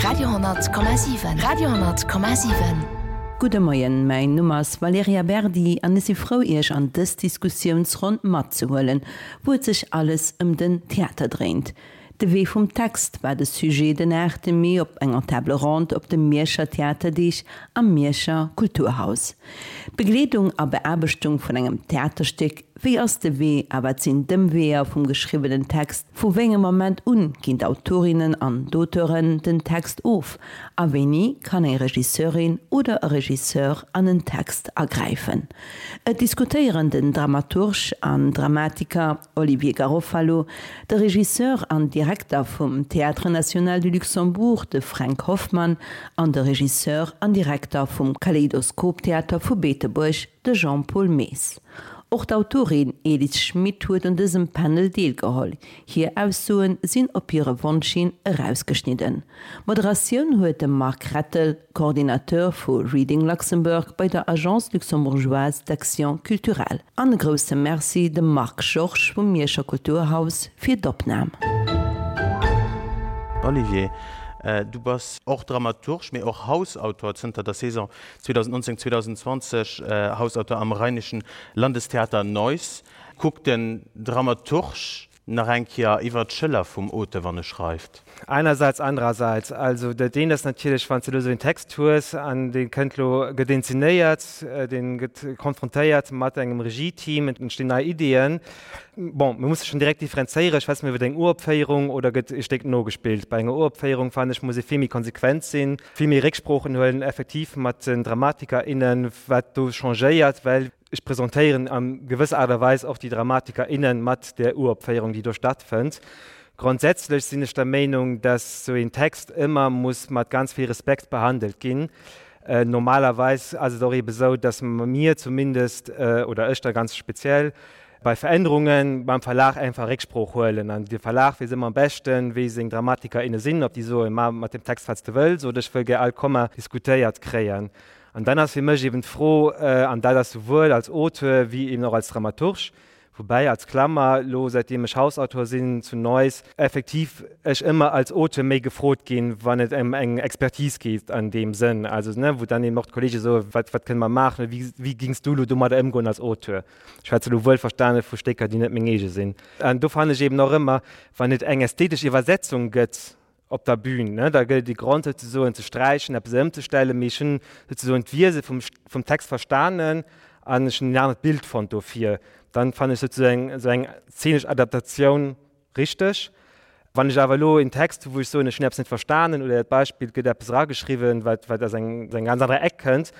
Radio,7 Radio,7. Gudde Moien, mäin Numm ass Valerija Berdi an ech si frou Iech an dës Diskussiounsronn matzehuelen, wou et sech alles ëm den Theater dréint. De Wee vum Text war de Sujet den 8 Mee op enger Table ronde op de Mierscher Theaterdeeg am Mierscher Kulturhaus. Begleedung a Beaarbechtung vun engem Theaterstéck, wéi ass de Wee a wat sinn d'Ëmweeër vum geschriwwenen Text, vu wéi engem Moment un ginn d'Autorinnen an d'Auteuren den Text of a wéini kann eng Regisseurin oder e Regisseur an en Text agräifen? Et diskutéieren den Dramaturg an Dramatiker Olivier Garofalo, de Regisseur an Direkter vum Théâtre National du Luxembourg, de Fränk Hoffmann, an de Regisseur an Direkter vum Kaleidoskop-Theater vu Beetebuerg, de Jean-Paul Maes. Och d'Autorin Elis Schmit huet un dësem Panel deelgeholl. Hir Aussoe sinn op hire Wonsch hin erausgeschnidden. D'Moderatioun huet de Marc Rettel, Coordinateur vu Reading Luxembourg bei der Agence luxembourgeoise d'action culturelle. An e grousse Merci dem Marc Georges vum Mierscher Kulturhaus fir d'Opnam. Olivier, du bass och Dramaturg, mee och Hausautor, zënter der Saison 2019, 2020 Hausautor am Rheinischen Landestheater Neuss. Kuckt den Dramaturg Nach eng Kéier iwwert d'Schëller vum Auteur, wann e schreift. Einerseits, andererseits. Also dat eent ass natierlech, wann s de elo esou een Text hues an dee kënnt elo, gëtt inzenéiert, dee gëtt konfrontéiert mat engem Regie-Team, et entstinn nei Ideeën. Bon, mir musse schonn direkt differenzéieren, schwätze mir iwwer eng Uropféierung oder gëtt e Stéck nogespillt? Bei enger Uropféierung, fannen ech, muss ee vill méi konsequent sinn, vill méi Récksproochen huelen, effektiv mat den Dramatiker, innen, wat do changéiert, well Ech presentéieren a gewësser Aart a Weis och déi Dramatiker, innen mat där Uropféierung, déi do stattfënnt. Grondsätzlech sinn ech der Meenung, dass esou een Text ëmmer muss mat ganz vill Respekt behandelt ginn. Normalerweis ass et och eebe sou, dass mir zumindest, oder ech da ganz speziell, bei Verännerunge beim Verlag einfach Récksprooch huelen. An de Verlag weess ëmmer am beschten, wéi seng Dramatiker, inne sinn, ob déi soen, Ma mat dem Text, wat s de wëlls, oder ech wëll gär all Komma diskutéiert kréien. An dann ass fir mech eben d'Fro, an dat ass souwuel als Auteur wéi eben och als Dramaturg, woubäi als Klammer, elo säitdeem ech Hausautor sinn zu Neuss, effektiv ech ëmmer als Auteur méi gefrot ginn, wann et ëm eng Expertise geet an deem Sënn, also ne, wou dann eben och d'Kollege soen, wat, wat kënne mer maachen oder wéi, wéi gings du elo domadder ëmgoen als Auteur? Ech schwätze elo wuelverstane vu Stécker, déi net meng eege sinn. An do fannen ech eben och ëmmer, wann et eng ästhetesch Iwwersetzung gëtt, op der Bühn, ne, da gëtt et déi Grond souzesoen ze sträichen, eppes ëmzestellen, mee ech hunn souzesoen d'Wiese vum, vum Text verstanen an ech hunn en anert Bild fonnt dofir. Dann fannen ech souzesoen esou eng zeenesch Adaptatioun richteg. Wann ech awer elo en Text hu wou ech soen, ech hunn eppes net verstanen oder dat Beispill, et gëtt eppes erageschriwwen, wat, wat aus engem, aus engem ganz anere Eck kënnt,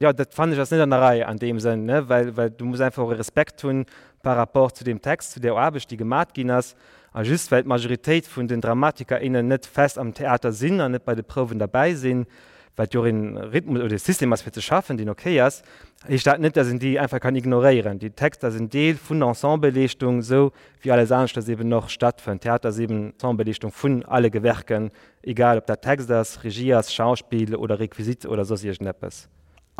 jo, dat fannen ech ass net an der Rei an deem Sënn, ne, well, well du muss einfach och e Respekt hunn par rapport zu deem Text, zu där Aarbecht, déi gemat ginn ass. A just well d'Majoritéit vun den Dramatiker, innen net fest am Theater sinn an net bei de Prouwen derbäi sinn, wat jo och een Rhythmus oder e System ass fir ze schaffen, deen ok ass, heescht dat net, dass een déi einfach kann ignoréieren. Déi Texter sinn Deel vun der Ensembleleeschtung, esou wéi alles aneschters eben och stattfënnt. Theater ass eben Ensembleleeschtung vun alle Gewerken, egal ob dat Text ass, Regie ass, Schauspill oder Requisite oder soss iergendeppes.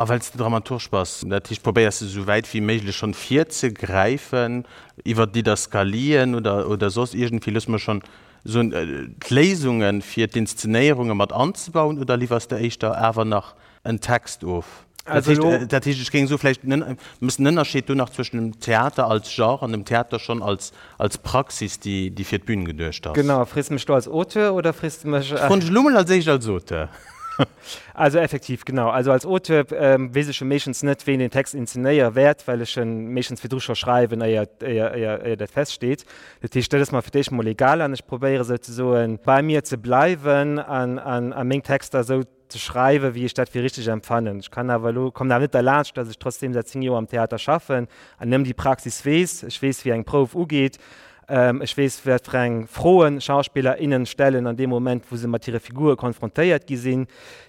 A well s de Dramaturg bass, dat heescht probéiers de sou wäit wéi méiglech schonn virzegräifen iwwer Didaskalien oder oder soss iergendwéi, loosse mer schonn soen, d'Léisunge fir d'Inszenéierunge mat anzebauen oder liwwers de éischter awer nach en Text of? Dat heescht, dat heescht ech géing soe vläicht mëss den Ënnerscheed do nach zwëschen dem Theater als Genre an dem Theater schonn als als Praxis déi déi fir d'Bün geduecht ass. Genau, frees de mech do als Auteur oder frees de mech. Ech froen dech elo mol als éischt als Auteur. Also effektiv, genau. Also als Auteur weess ech jo meeschtens net, ween den Text inzenéiere wäert, well ech en meeschtens virdru scho schreiwen, éier, éier, éier, éier dat feststeet. Dat heescht, dat ass mer fir d'éischt mol egal an ech probéiere souzesoen, bei mir ze bleiwen an, an, a meng Texter esou ze schreiwen, wéi ech dat fir richteg empfannen. Ech kann awer elo, kommen awer net derlaanscht, dass ech trotzdeem säit 10 Joer am Theater schaffen an ëm déi Praxis weess. Ech weess, wéi eng Prouf ugeet. Ech weess, wat fir eng Froen Schauspiller, innen stellen an deem Moment, wou se mat hire Figure konfrontéiert gi sinn.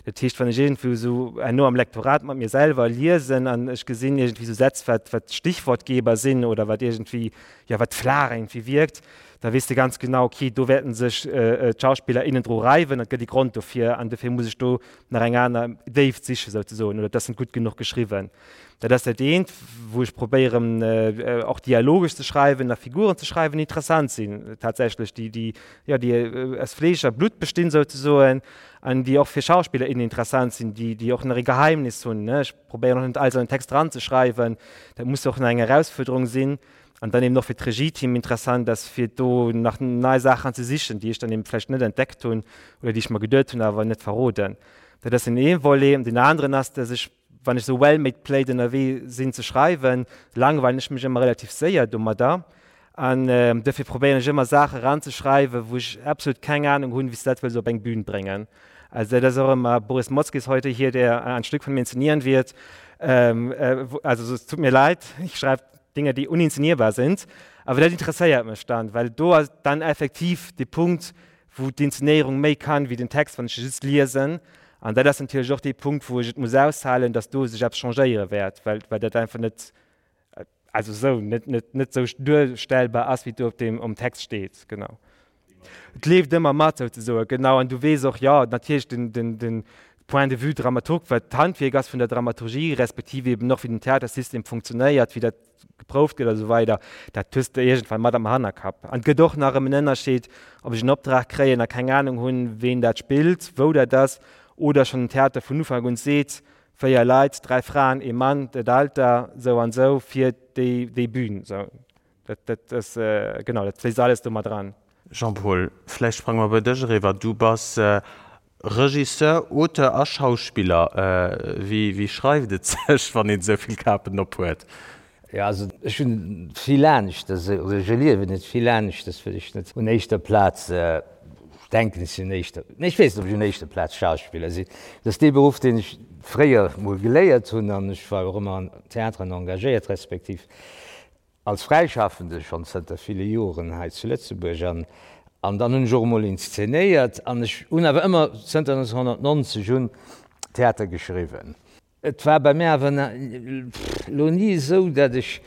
Dat heescht, wann ech iergendwou esou herno am Lektorat mat mir selwer liesen an ech gesinn iergendwéi esou Sätz, wat, wat Stichwortgeber sinn oder wat iergendwéi, jo, wat flaach iergendwéi wierkt, Da weess de ganz genau, okay, do wäerten sech d'Schauspiller, innen dru reiwen, et gëtt ee Grond dofir an dofir muss ech do nach eng aner Déift sichen souzesoen oder et ass net gutt genuch geschriwwen. Dat ass dat eent, wou ech probéieren och dialogesch ze schreiwen a Figuren ze schreiwen, déi interessant sinn tatsächlech, déi, déi, jo, déi aus Fleesch a Blutt bestinn souzesoen an déi och fir Schauspiller, innen interessant sinn, déi, déi och nach ee Geheimnis hunn, ne. Ech probéieren och net alles an den Text eranzeschreiwen, dat muss och nach eng Erausfuerderung sinn. An dann eben och fir d'Regieteam interessant ass, fir do nach nei Saachen ze sichen, déi ech dann eben vläicht net entdeckt hunn oder déi ech mer geduet hunn, awer net verroden. Dat ass den ee Volet. An deen aneren ass, dass ech, wann ech esou well-made plate ënnerwee sinn ze schreiwen, langweilen ech mech ëmmer relativ séier domadder. An dofir probéieren ech ëmmer Saache eranzeschreiwen, wou ech absolut keng Ahnung hunn, wéi s de dat wëlls op eng Bühn bréngen. Also dat ass och ëmmer, Boris Motzki ist heute hier, der ein Stück von mir inszenieren wird. Also es tut mir leid, ich schreibe Dinge, déi uninszenierbar sind. Awer dat interesséiert mech dann, well do ass dann effektiv de Punkt, wou d'Inszenéierung méi kann wéi den Text, wann ech e just liesen. An dat ass natierlech och dee Punkt, wou ech et muss aushalen, dass do sech eppes changéiere wäert, well, well dat einfach net, also esou, net, net, net esou duerstellbar ass, wéi et do op deem, um Text steet. Genau. Et leeft ëmmer mat, souzesoen, genau. An du weess och, jo, natierlech den, den, den Point de vue Dramaturg, wat d'Handwierk ass vun der Dramaturgie, respektiv eben och wéi den Theatersystem funktionéiert, wéi dat geprouft gëtt a sou weider, dat hues de iergendwann mat am Hannerkapp. An et gëtt och nach erëm en Ënnerscheed, ob ech en Optrag kréien a keng Anung hunn, ween dat spillt, wou dat ass, oder schonn den Theater vun Ufank un seet, 4 Leit, 3 Fraen, ee Mann, dat Alter, sou an sou, fir déi, déi Bühn. Sou. Dat, dat ass, genau, dat fléisst alles do mat eran. Jean-Paul, vläicht sprange mer bei dech eriwwer. Du bass Regisseur, Auteur a Schauspiller. Wéi, wéi schreift et sech, wann een esou vill Kapen op huet? Jo, also ech hunn vill aneschters, oder ech erliewen et vill aneschters, well ech net un éischter Plaz, ech denken ech sinn un éischter, nee ech weess net, ob ech un éischter Plaz Schauspiller sinn. Dat ass dee Beruff, deen ech fréier mol geléiert hunn an ech war och ëmmer an Theateren engagéiert, respektiv Als Fräischaffende schonn zënter ville Joren hei zu Lëtzebuerg an an dann hunn ech och emol inszenéiert an ech hunn awer ëmmer zënter 1990 un Theater geschriwwen. Et war bei mir awer elo ni esou, datt ech,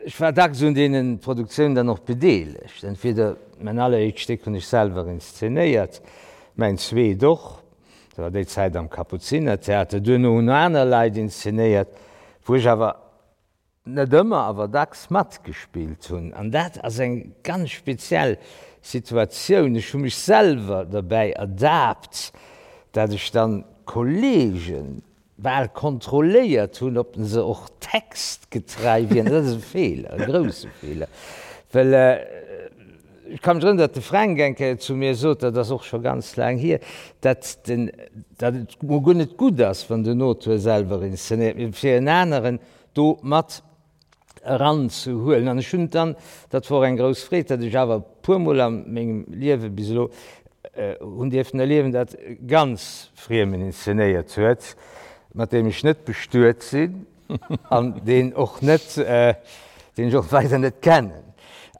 ech war dacks un deene Produktiounen dann och bedeelegt. Entweder mäin alleréischt Stéck hunn ech selwer inszenéiert, mäin zweet och, dat war déi Zäit am Kapuzinertheater, duerno hunn aner Leit inszenéiert, wou ech awer net ëmmer, awer dacks matgespillt hunn. An dat ass eng ganz speziell Situatioun. Ech hu mech selwer derbäi ertaapt, dat ech dann d'Kollege bal kontrolléiert hunn, ob se och textgetrei wieren. Dat ass e Feeler, e grousse Feeler, well ech ka mech erënneren, datt de Fränk eng Kéier zu mir sot, dat ass och scho ganz laang hier, datt den, datt et mol guer net gutt ass, wann den Auteur selwer inszenéiert, mee fir en aneren do mat eranzehuelen. An ech hunn dann, dat wor eng grouss Freed, datt ech awer e puermol a mengem Liewe bis elo hunn dierfen erliewen, datt e ganz Friemen inszenéiert huet, mat deem ech net bestuet sinn an deen och net, deen ech och weider net kennen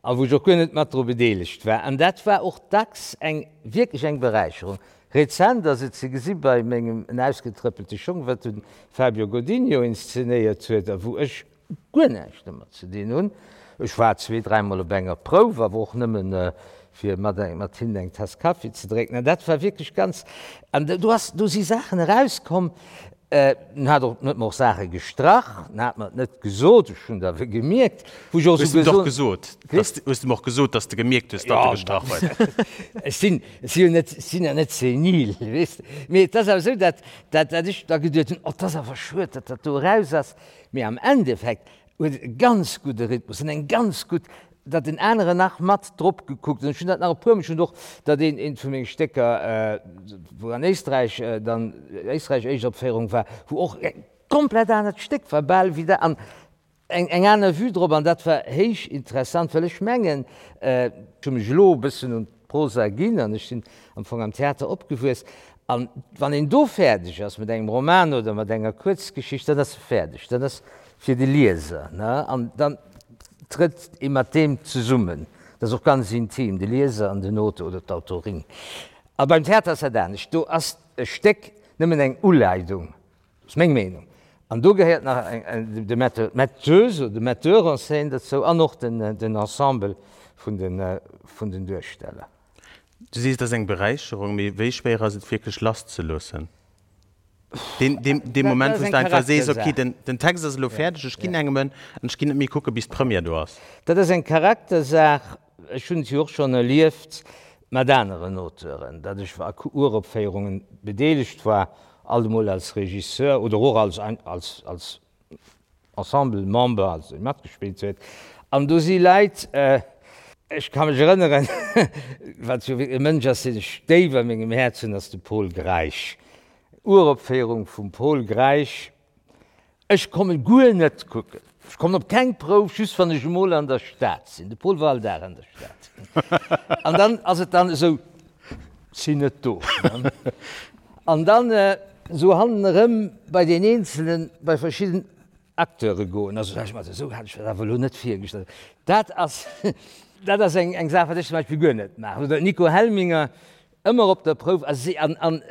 a wou ech och guer net mat dru bedeelegt war. An dat war och dacks eng wierklech eng Beräicherung. Rezent ass et ze gesi bei mengem En ausgetrëppelte Schong, wat de Fabio Godinho inszenéiert huet a wou ech guer näischt domat ze dinn hunn. Ech war zwee, dräimol op enger Prouf, awer och nëmmen fir mat mat hinnen eng Tass Kaffi ze drénken. An dat war wierklech ganz, an do ass, do si Saachen erauskomm, En hat och, en huet mer och Saache gestrach, en hat mer et net gesot, ech hunn et awer gemierkt, wou ech och esou gesot. Hues de em och gesot, hues de em och gesot, datt s de gemierkt hues, datt e gestrach huet? Ech sinn, ech si jo net, ech sinn jo net senil, weess de. Mee et ass awer esou, datt, datt, datt ech da geduet hunn, oh, et ass awer schued, datt dat do eraus ass. Mee am Endeffekt huet et e ganz gudde Rhythmus an eng ganz gutt, datt en aneren nach mat drop gekuckt hunn. Ech hunn dat nach e puermol, ech hunn och datt een eent vu menge Stécker, wou an Éisträich dann, Éisträich Éischtopféierung war, wou och e komplett anert Stéck war bal wéi dat an eng eng aner Vue drop an dat war héich interessant, well ech mengen, ech hu mech elo e bëssen un d'Prosa ginn an ech sinn am Fong am Theater opgewuess an wann een do fäerdeg ass mat engem Roman oder mat enger Kuerzgeschicht, dann ass e fäerdeg, dann ass fir de Lieser, ne, an dann trëtt ee mat deem zesummen. Dat ass och ganz intim, de Lieser an den Auteur oder d'Autorin. A beim Theater ass dat anescht, do ass e Stéck nëmmen eng Uleidung, dat ass meng Meenung. An do gehéiert nach de Metteur, d'Metteuse oder de Metteur en scène dozou an och den Ensemble vun den Duersteller. Du sees, et ass eng Beräicherung, mee wéi schwéier ass et wierklech lasszeloossen? Deen Moment, wou s de einfach sees, ok, den Text ass elo fäerdeg, ech ginn engem en an ech ginn net méi kucke bis d'Première do ass. Dat ass eng Charaktersaach. Ech hunn et jo och schonn erlieft mat aneren Auteuren, datt ech a Uropféierunge bedeelegt war, alt emol als Regisseur oder och als als als Ensemblemember, also dee matgespillt huet. An do si Leit, ech ka mech erënneren, wat jo wierklech e Mënsch ass, deen ech déif a mengem Häerz hunn, ass de Pol Greisch. Uropféierung vum Pol Greisch. Ech kommen guer net kucken. Ech kommen op keng Prouf, just wann ech emol an der Stad sinn. De Pol war all Dag an der Stad. An dann ass et dann esou, sinn net do. An dann esou hannen erëm bei deen Eenzelen, bei verschidden Acteure goen. Also sag ech mer, esou hat ech dat awer elo net virgestallt. Dat ass, dat ass eng, eng Saach, wat ech zum Beispill guer net maachen. Oder Nico Helminger, Ëmmer op der Prouf a si an an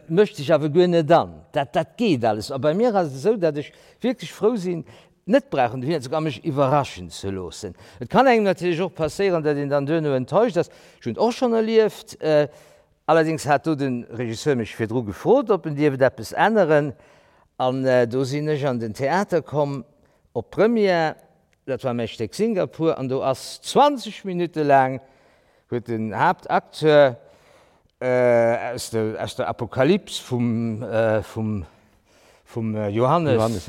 mëscht sech awer guer net an. Dat dat geet alles. A bei mir ass et esou, datt ech wierklech frou sinn, net brauchen dohinner ze goen a mech iwwerraschen ze loossen. Et kann engem natierlech och passéieren, datt een dann duerno enttäuscht ass. Ech hunn et och schonn erlieft. Allerdéngs hat do de Regisseur mech virdru gefrot, ob en dierft eppes änneren. An do sinn ech an den Theater komm op d'Première. Dat war mäi Stéck Singapur an do ass 20 Minutte laang huet den Haaptacteur aus der aus der Apokalyps vum vum vum Johannes Johannes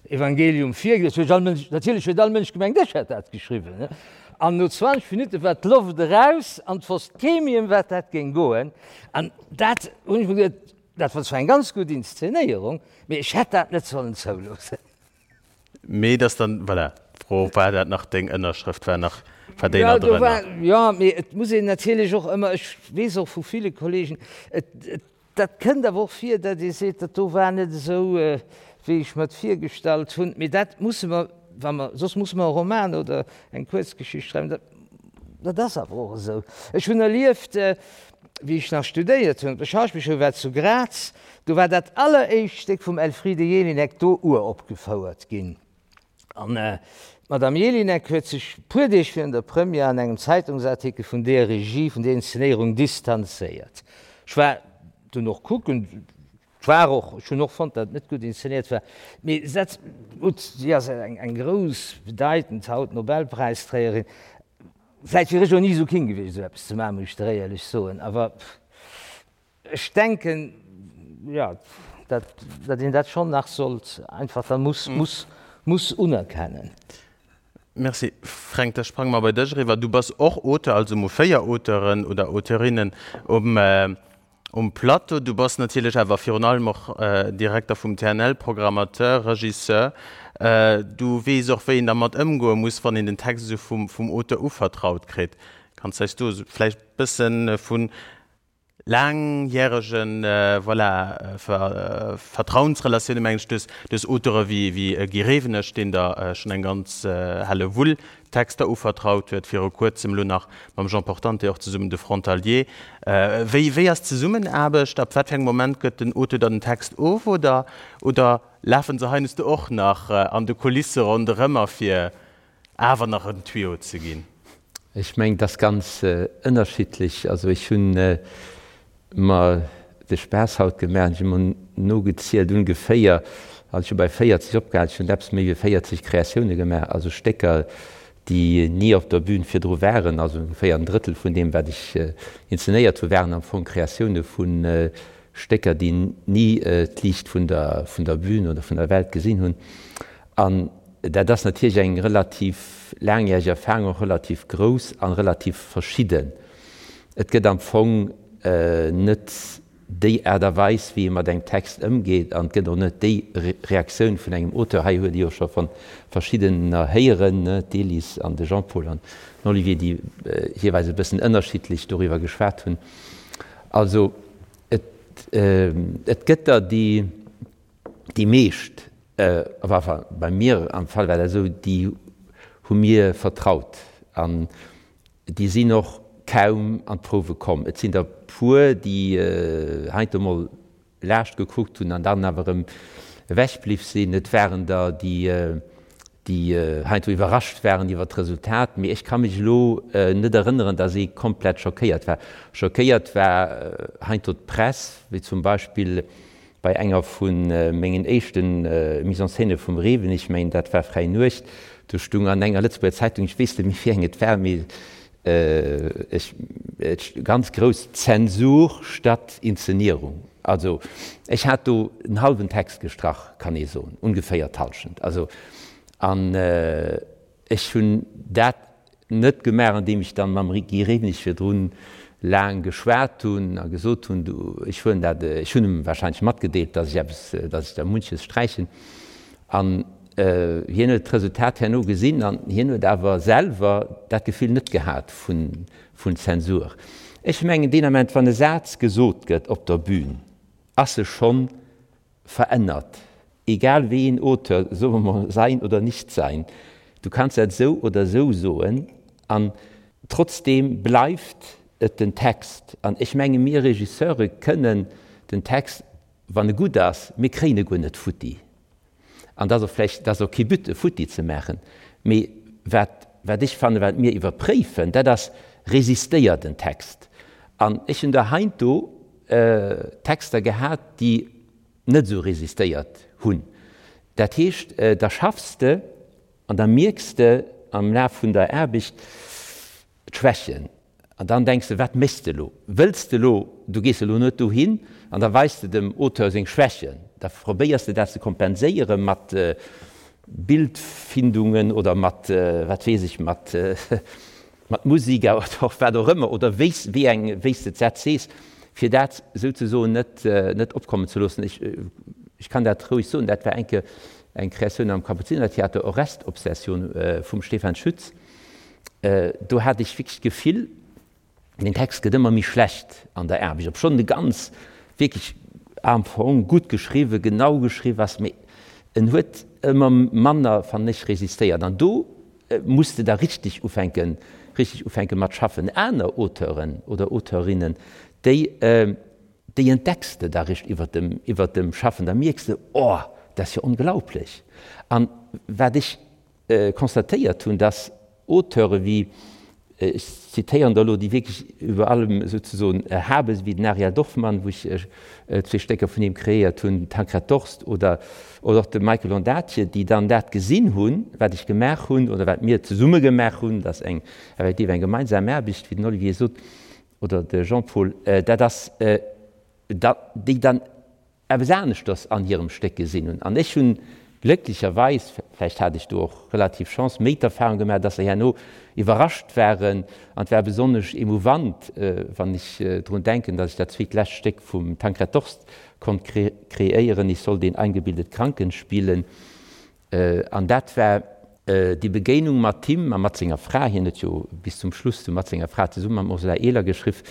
Evangelium virgelies. Huet all Mënsch, natierlech huet all Mënsch gemengt, ech hätt dat geschriwwen, ne? An no 20 Minutte war d'Loft eraus an 't wosst kee méi ëm wat dat géing goen. An dat hunn ech mer geduet, dat war zwar eng ganz gutt Inszenéierung, mee ech hätt dat net sollen zouloossen. Mee dass dann, voilà, d'Fro, war dat nach deng Ënnerschrëft, war nach, war déi nach drënner? Jo, mee et muss een natierlech och ëmmer, ech weess och vu ville Kollegen, et, et, dat kënnt awer och vir, datt ee seet, dat do war net esou, wéi ech mer et virgestallt hunn. Mee dat musse mer, wa mer, soss musse mer e Roman oder eng Kuerzgeschicht schreiwen, dat, dat ass awer och esou. Ech hunn erlieft, wéi ech nach studéiert hunn op der Schauspielschoul, war zu Graz, Do war dat alleréischt Stéck vum Elfriede Jelinek do uropgefouert ginn. An d'Madame Jelinek huet sech puer Deeg virun der Première an engem Zeitungsartikel vun deer Regie, vun deer Inszenéierung distanzéiert. Ech war dunn och kucken, et war och, ech hunn och fonnt, datt et net gutt inszenéiert war, mee dat, gutt, si ass eng grouss, bedeitend haut Nobelpräisträgerin, vläicht wier ech och ni esou keen gewiescht, esou eppes ze maachen, muss ech der éierlech soen, awer. Ech denken, jo, datt, datt een dat schonn nach sollt einfach da muss, muss, muss unerkennen. Merci. Fränk, da sprange mer bei dech eriwwer. Du bass och Auteur, also mol 4 Auteuren oder Auteurinnen um, um Plateau. Du bass natierlech awer virun allem och Direkter vum TNL, Programmateur, Regisseur. Du weess och, wéi een dermat ëmgoe muss, wann een den Text esou vum, vum Auteur uvertraut kritt. Kanns eis do vläicht e bësse vun laangjäregen, voilà, Vertrauensrelatioune mengen ech, duerch duerch Auteure wéi wéi Guy Rewenig, deen der schonn eng ganz Hellewull Texter uvertraut huet, viru kuerzem elo nach mam Jean Portante och zesummen de Frontalier. Wéi wéi ass d'Zesummenaarbecht? Ab wat fir engem Moment gëtt den Auteur dann den Text of oder oder lafe se heiansdo och nach an de Kulisse ronderëm a fir awer nach en Tuyau ze ginn? Ech mengen, et ass ganz ënnerschiddlech. Also ech hu mer de Spaass haut gemaach an ech hu mer nogezielt, ungeféier, also ech hu bei 40 opgehal, ech hunn eppes méi wéi 40 Kreatioune gemaach, also Stécker, déi ni op der Bühn virdru waren. Also ongeféier en Drëttel vun deem, wat ech inzenéiert hu, waren am Fong Kreatioune vu Stécker, déi ni d'Liicht vun der, vun der Bühn oder vun der Welt gesinn hunn. An dat ass natierlech eng relativ laangjäreg Erfahrung, och relativ grouss a relativ verschidden. Et gëtt am Fong net déi Aart a Weis, wéi ee mat engem Text ëmgeet, an et gëtt och net déi Reaktioun vun engem Auteur. Hei huet ee jo scho vu verschiddener héieren, d'Elise an de Jean-Paul an den Olivier, déi jeeweils e bëssen ënnerschiddlech doriwwer geschwat hunn. Also et, et gëtt der, déi. Déi meescht, enfin bei mir am Fall war dat esou, déi hu mir vertraut an déi sinn och kaum an d'Prouwe komm. Et sinn der puer, déi heiansdo mol laascht gekuckt hunn an dann awer erëm. Ewech bliww sinn. Et waren der, déi, déi heiansdo iwwerrascht waren iwwer d'Resultat, mee ech ka mech elo net erënneren, datt ee komplett schockéiert war. Schockéiert war heiansdo d'Press, wéi zum Beispill bei enger vu mengen éischte Mise-en-scène vum Reven, ech mengen dat war Fräi Nuecht, do stung an enger Lëtzebuerger Zeitung, ech weess net méi wéi eng et war, mee ech, ganz grouss, Zensur statt Inszenierung. Also ech hat do en hallwen Text gestrach, kann ee soen, ongeféier d'Hallschent. Also, an ech hunn dat net gemaach, andeem ech dann mam Guy Rewenig virdrun laang geschwat hunn a gesot hunn, du, ech huelen dat, ech hunn em wahrscheinlech matgedeelt, datt ech eppes, datt ech da munches sträichen. An hien huet d'Resultat herno gesinn an hien huet awer selwer dat Gefill net gehat vun Zensur. Ech mengen, deen Ament, wann e Saz gesot gëtt op der Bühn, ass e schonn verännert, egal wéi een Auteur, soe mer mol, sein oder nicht sein, du kanns dat esou oder esou soen an trotzdeem bleift et den Text. An ech menge mir Regisseure kënnen den Text, wann e gutt ass, mir kréien e guer net futti. An dat ass och vläicht, dat ass och kee But, e futti ze maachen, mee wat, wat ech fannen, wat mir iwwerpréifen, dat ass, Resistéiert en Text? An ech hunn der heiansdo Texter gehat, déi net esou resistéiert hunn. Dat heescht, da schaffs de an da mierks de am Laf vun der Aarbecht d'Schwächen. An dann denks de, wat méchs de elo? Wëlls de elo, du gees elo net dohin an da weis de dem Auteur seng Schwächen, da probéiers de dat ze kompenséiere mat Bildfindungen oder mat, wat weess ech, mat mat Musik oder och wat och ëmmer, oder wéi s, wéi eng, wéi s de d'Sätz sees, fir dat souzesoen net, net opkommen ze loossen. Ech, ech kann dat roueg soen, dat war eng Kéier eng Kreatioun am Kapuzinertheater, Orest-Obsession vum Stefan Schütz. Do hat ech wierklech d'Gefill, den Text gëtt ëmmer méi schlecht an der Aarbecht, obschonn e ganz wierklech am Fong gutt geschriwwen, genau geschriwwen ass, mee en huet ëmmer manner, fannen ech, resistéiert. An do muss de da richteg ufänken, richteg ufänke mat schaffen. Aner Auteuren oder Auteurinnen, déi, déi entdecks de da richt iwwert dem, iwwert dem Schaffen. Da mierks de, Oh, dat ass jo onglaublech. An wat ech constatéiert hunn, dass Auteure wéi, ech zitéieren der elo déi wierklech iwwer allem souzesoen erhabe sinn, wéi den Ariel Dorfman, wou ech zwee Stécker vun him kreéiert hunn, den Tancred Dorst oder och de Michael Ondaatje, déi dann dat gesinn hunn, wat ech gemaach hunn oder wat mir zesumme gemaach hunn, dat ass eng effektiv eng gemeinsam Aarbecht, wéi den Olivier sot oder de Jean-Paul, dat ass, déi dann eppes aneschters an hirem Stéck gesinn hunn. An ech hunn glécklecherweis, vläicht hat ech do och relativ Chance, méi d'Erfahrung gemaach, dass se herno iwwerrascht waren. An et war besonnesch emouvant, wann ech drun denken, dass ech dat zweet lescht Stéck vum Tancred Dorst konnt kreéieren, Ich soll den eingebildet Kranken spielen. An dat war déi Begéinung mat him a mat senger Fra, hien huet jo bis zum Schluss du mat senger Fra zesumme mam Ursula Ehler geschriff,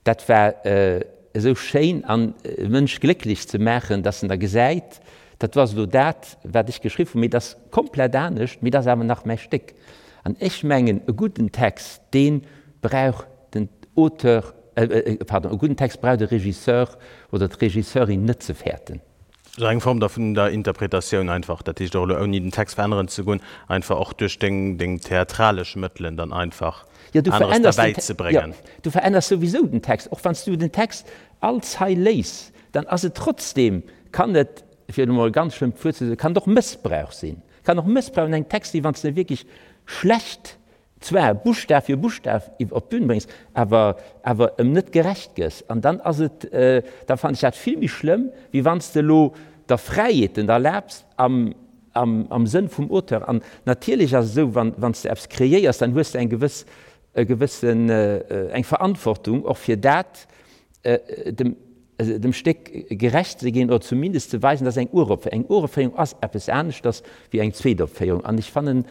dat war esou schéin an e Mënsch glécklech ze maachen, dass en da gesäit, dat do ass elo dat, wat ech geschriff hunn, mee dat ass komplett anescht, mee dat ass awer nach mäi Stéck. An ech mengen, e gudden Text, dee brauch den Auteur, pardon, e gudden Text brauch de Regisseur oder d'Regisseurin net ze fäerten. Sou eng Form da vun der Interpretatioun einfach, dat heescht och elo ouni den Text veränneren ze goen, einfach och duerch deng deng theatralesch Mëttelen dann einfach Ja, du aneres verännerst den derbäi ze bréngen. Ja, du verännerst souwisou den Text. Och wann s du den Text all Zeil léis, dann ass et trotzdem, kann et, fir elo mol e ganz schlëmmt Wuert ze soen, kann et och Mëssbrauch sinn. Kann och Mëssbrauch un engem Text sinn, wann s de e wierklech schlecht zwar Buschtaf fir Buschtaf op d'Bün bréngs, awer awer em net gerecht gëss. An dann ass et, da fannen ech dat vill méi schlëmm, wéi wann s de elo der Fräiheeten erlaabs am am am Sënn vum Auteur. An natierlech ass et esou, wann wann s de eppes kreéiers, dann hues de eng gewëss e gewëssen eng Verantwortung och fir dat dem dem Stéck gerecht ze ginn oder zumindest ze weisen, dass eng Uropféierung, eng Uropféierung ass eppes aneschters wéi eng Zweetopféierung. An ech fannen,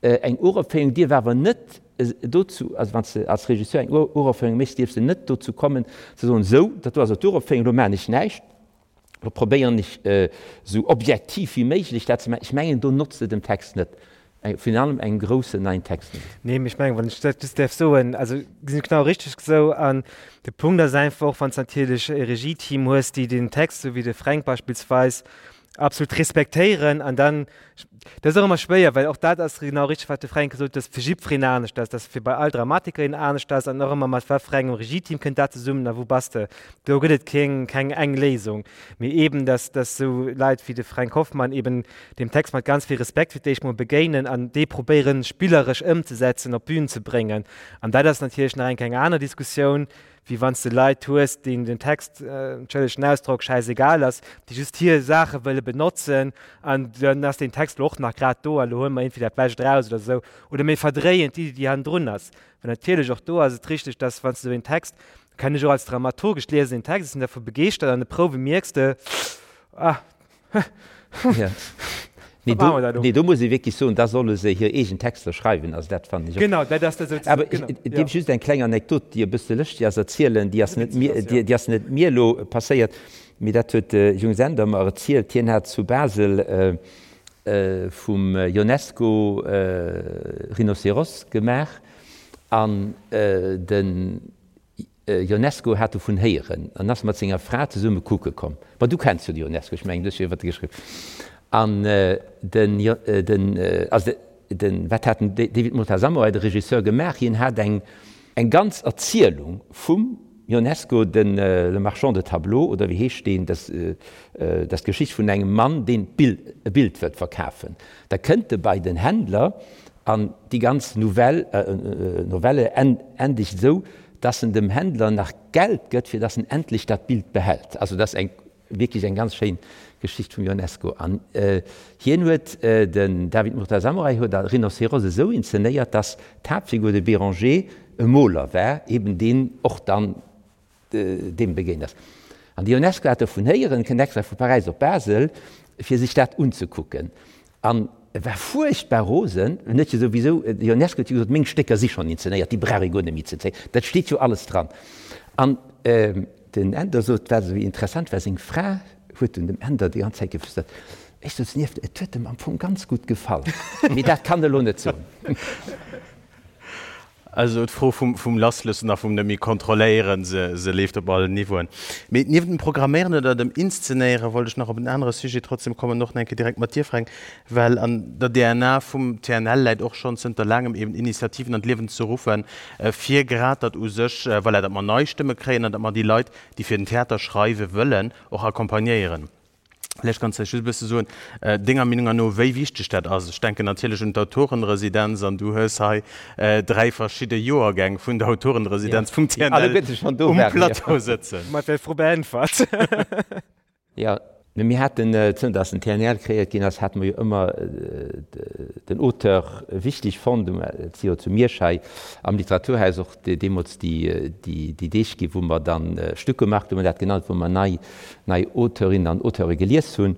eng Uropféierung dierf awer net dozou, also wann s de als Regisseur eng Uropféierung méchs, dierfs de net dozou kommen ze soen, sou, dat do ass elo d'Uropféierung, elo maachen ech näischt, elo probéieren ech esou objektiv wéi méiglech dat ze maachen. Ech mengen, do notzt de dem Text net. Virun allem engem groussen neien Text net. Nee, mee ech mengen, wann ech dat just däerf soen, also gesinn ech genau richteg esou. An de Punkt ass einfach och, wann s de natierlech e Regieteam hues, déi den Text, esou wéi de Fränk beispillsweis. Absolut respektéieren an dann, dat ass och ëmmer schwéier, well och dat ass genau richteg, wat de Fränk gesot huet, dass fir jiddwereen anescht ass, dass fir bei all Dramatikerin anescht ass an och ëmmer mat wat fir engem Regieteam kënnt dat zesummen a wou bass de. Do gëtt et keng, keng eng Léisung. Mee eeben, dass, dass esou Leit wéi de Fränk Hoffmann eeben deem Text mat ganz vill Respekt fir d'éischt mol begéinen an dee probéieren spilleresch ëmzesetzen, op d'Bün ze bréngen. An dat ass natierlech nach eng keng aner Diskussioun, wéi wann s de Leit hues, deenen den Text, entschëllegt den Ausdrock, schäisegal ass, déi just hir Saache wëlle benotzen an dann ass deen Text elo och nach grad do a lo huele mer iergendwéi dat Bescht eraus oder esou. Oder mir verdréien d'Iddi, déi hannendrun ass. Well natierlech och do ass et richteg, dass wann s de esou een Text, kennen ech och als Dramaturg, ech liesen een Text, ech sinn dervu begeeschtert, an de Prouwe mierks de, ah, Ja. Nee, do, nee, do muss ee wierklech soen, da solle se hir eegen Texter schreiwen. Also dat fannen ech och. Genau, dat ass dat souzesoen. Awer ech, ech dierf just eng kleng Anekdot, déi e bësse lëschteg ass, erzielen. Déi ass net mir, déi, déi ass net mir elo passéiert, mee dat huet de Jung Sender mer erzielt. Hien hat zu Basel vum Ionesco Rhinocéros gemaach an den Ionesco hat dovun héieren an ass mat senger Fra zesumme kucke komm. Ma du kenns jo de Ionesco, ech mengen, du hues jo iwwert e geschriwwen. An den, den, also den, wat hat den David Murtazamourai, de Regisseur, gemaach? Hien hat eng, eng ganz Erzielung vum Ionesco, den Le Marchand de tableaux, oder wéi heescht deen, dat ass d'Geschicht vun engem Mann, deen d'Bild, e Bild wëllt verkafen. Da kënnt e bei den Händler an déi ganz Nouvelle, Novelle endegt esou, dass en dem Händler nach Geld gëtt, fir dass en endlech dat Bild behält. Also dat ass eng wierklech eng ganz schéin Geschicht vum Ionesco. An hien huet, den David Murtazamorai huet a Rhinocéros esou inzenéiert, dass d'Haaptfigur, de Béranger, e Moler war, eben deen och dann deem begéint ass. An de Ionesco hat dovun héieren, kënnt extra vu Paräis op Basel, fir sech dat unzekucken. An e war fuerchtbar rosen, en huet jo souwisou, de Ionesco huet jo gesot, meng Stécker si schonn inzenéiert, déi brauch ee guer net méi ze inzenéieren, dat steet jo alles dran. An den Änder sot, wat esou interessant war, seng Fra huet dunn dem Änder déi ganz Zäit geflüstert, ech souz nieft, et huet em am Fong ganz gutt gefall, mee dat kann e lo net soen. Also d'Fro vum Lassloossen a vum net méi kontrolléieren, se leeft op allen Niveauen. Mee niewent dem Programméieren oder dem Inszenéiere wollt ech nach op en anere Sujet trotzdem kommen, och nach eng Kéier direkt mat dir, Fränk, well an der DNA vum TNL läit och schonn zënter laangem eben Initiativen an d'Liewen ze ruffen, fir grad datt u sech, voilà, datt mer nei Stëmme kréien an datt mer déi Leit, déi fir den Theater schreiwe wëllen, och accompagnéieren. Vläicht kanns de just e bësse soen, denger Meenung no, wéi wichteg dat ass. Ech denken natierlech un d'Autorenresidenz an du hues hei 3 verschidde Joergäng vun der Autorenresidenz vum TNL um Plateau sëtzen. Mat der Fro beäntwert. Jo, mir haten, zënter datt den TNL kreéiert ginn ass, hate mer jo ëmmer den Auteur wichteg fonnt. Et si jo zu Miersch hei am Literaturhaus och deemools déi Deeg ginn, wou mer dann Stückemarkt, hu mer dat genannt, wou mer nei nei Auteurinnen an Auteure gelies hunn.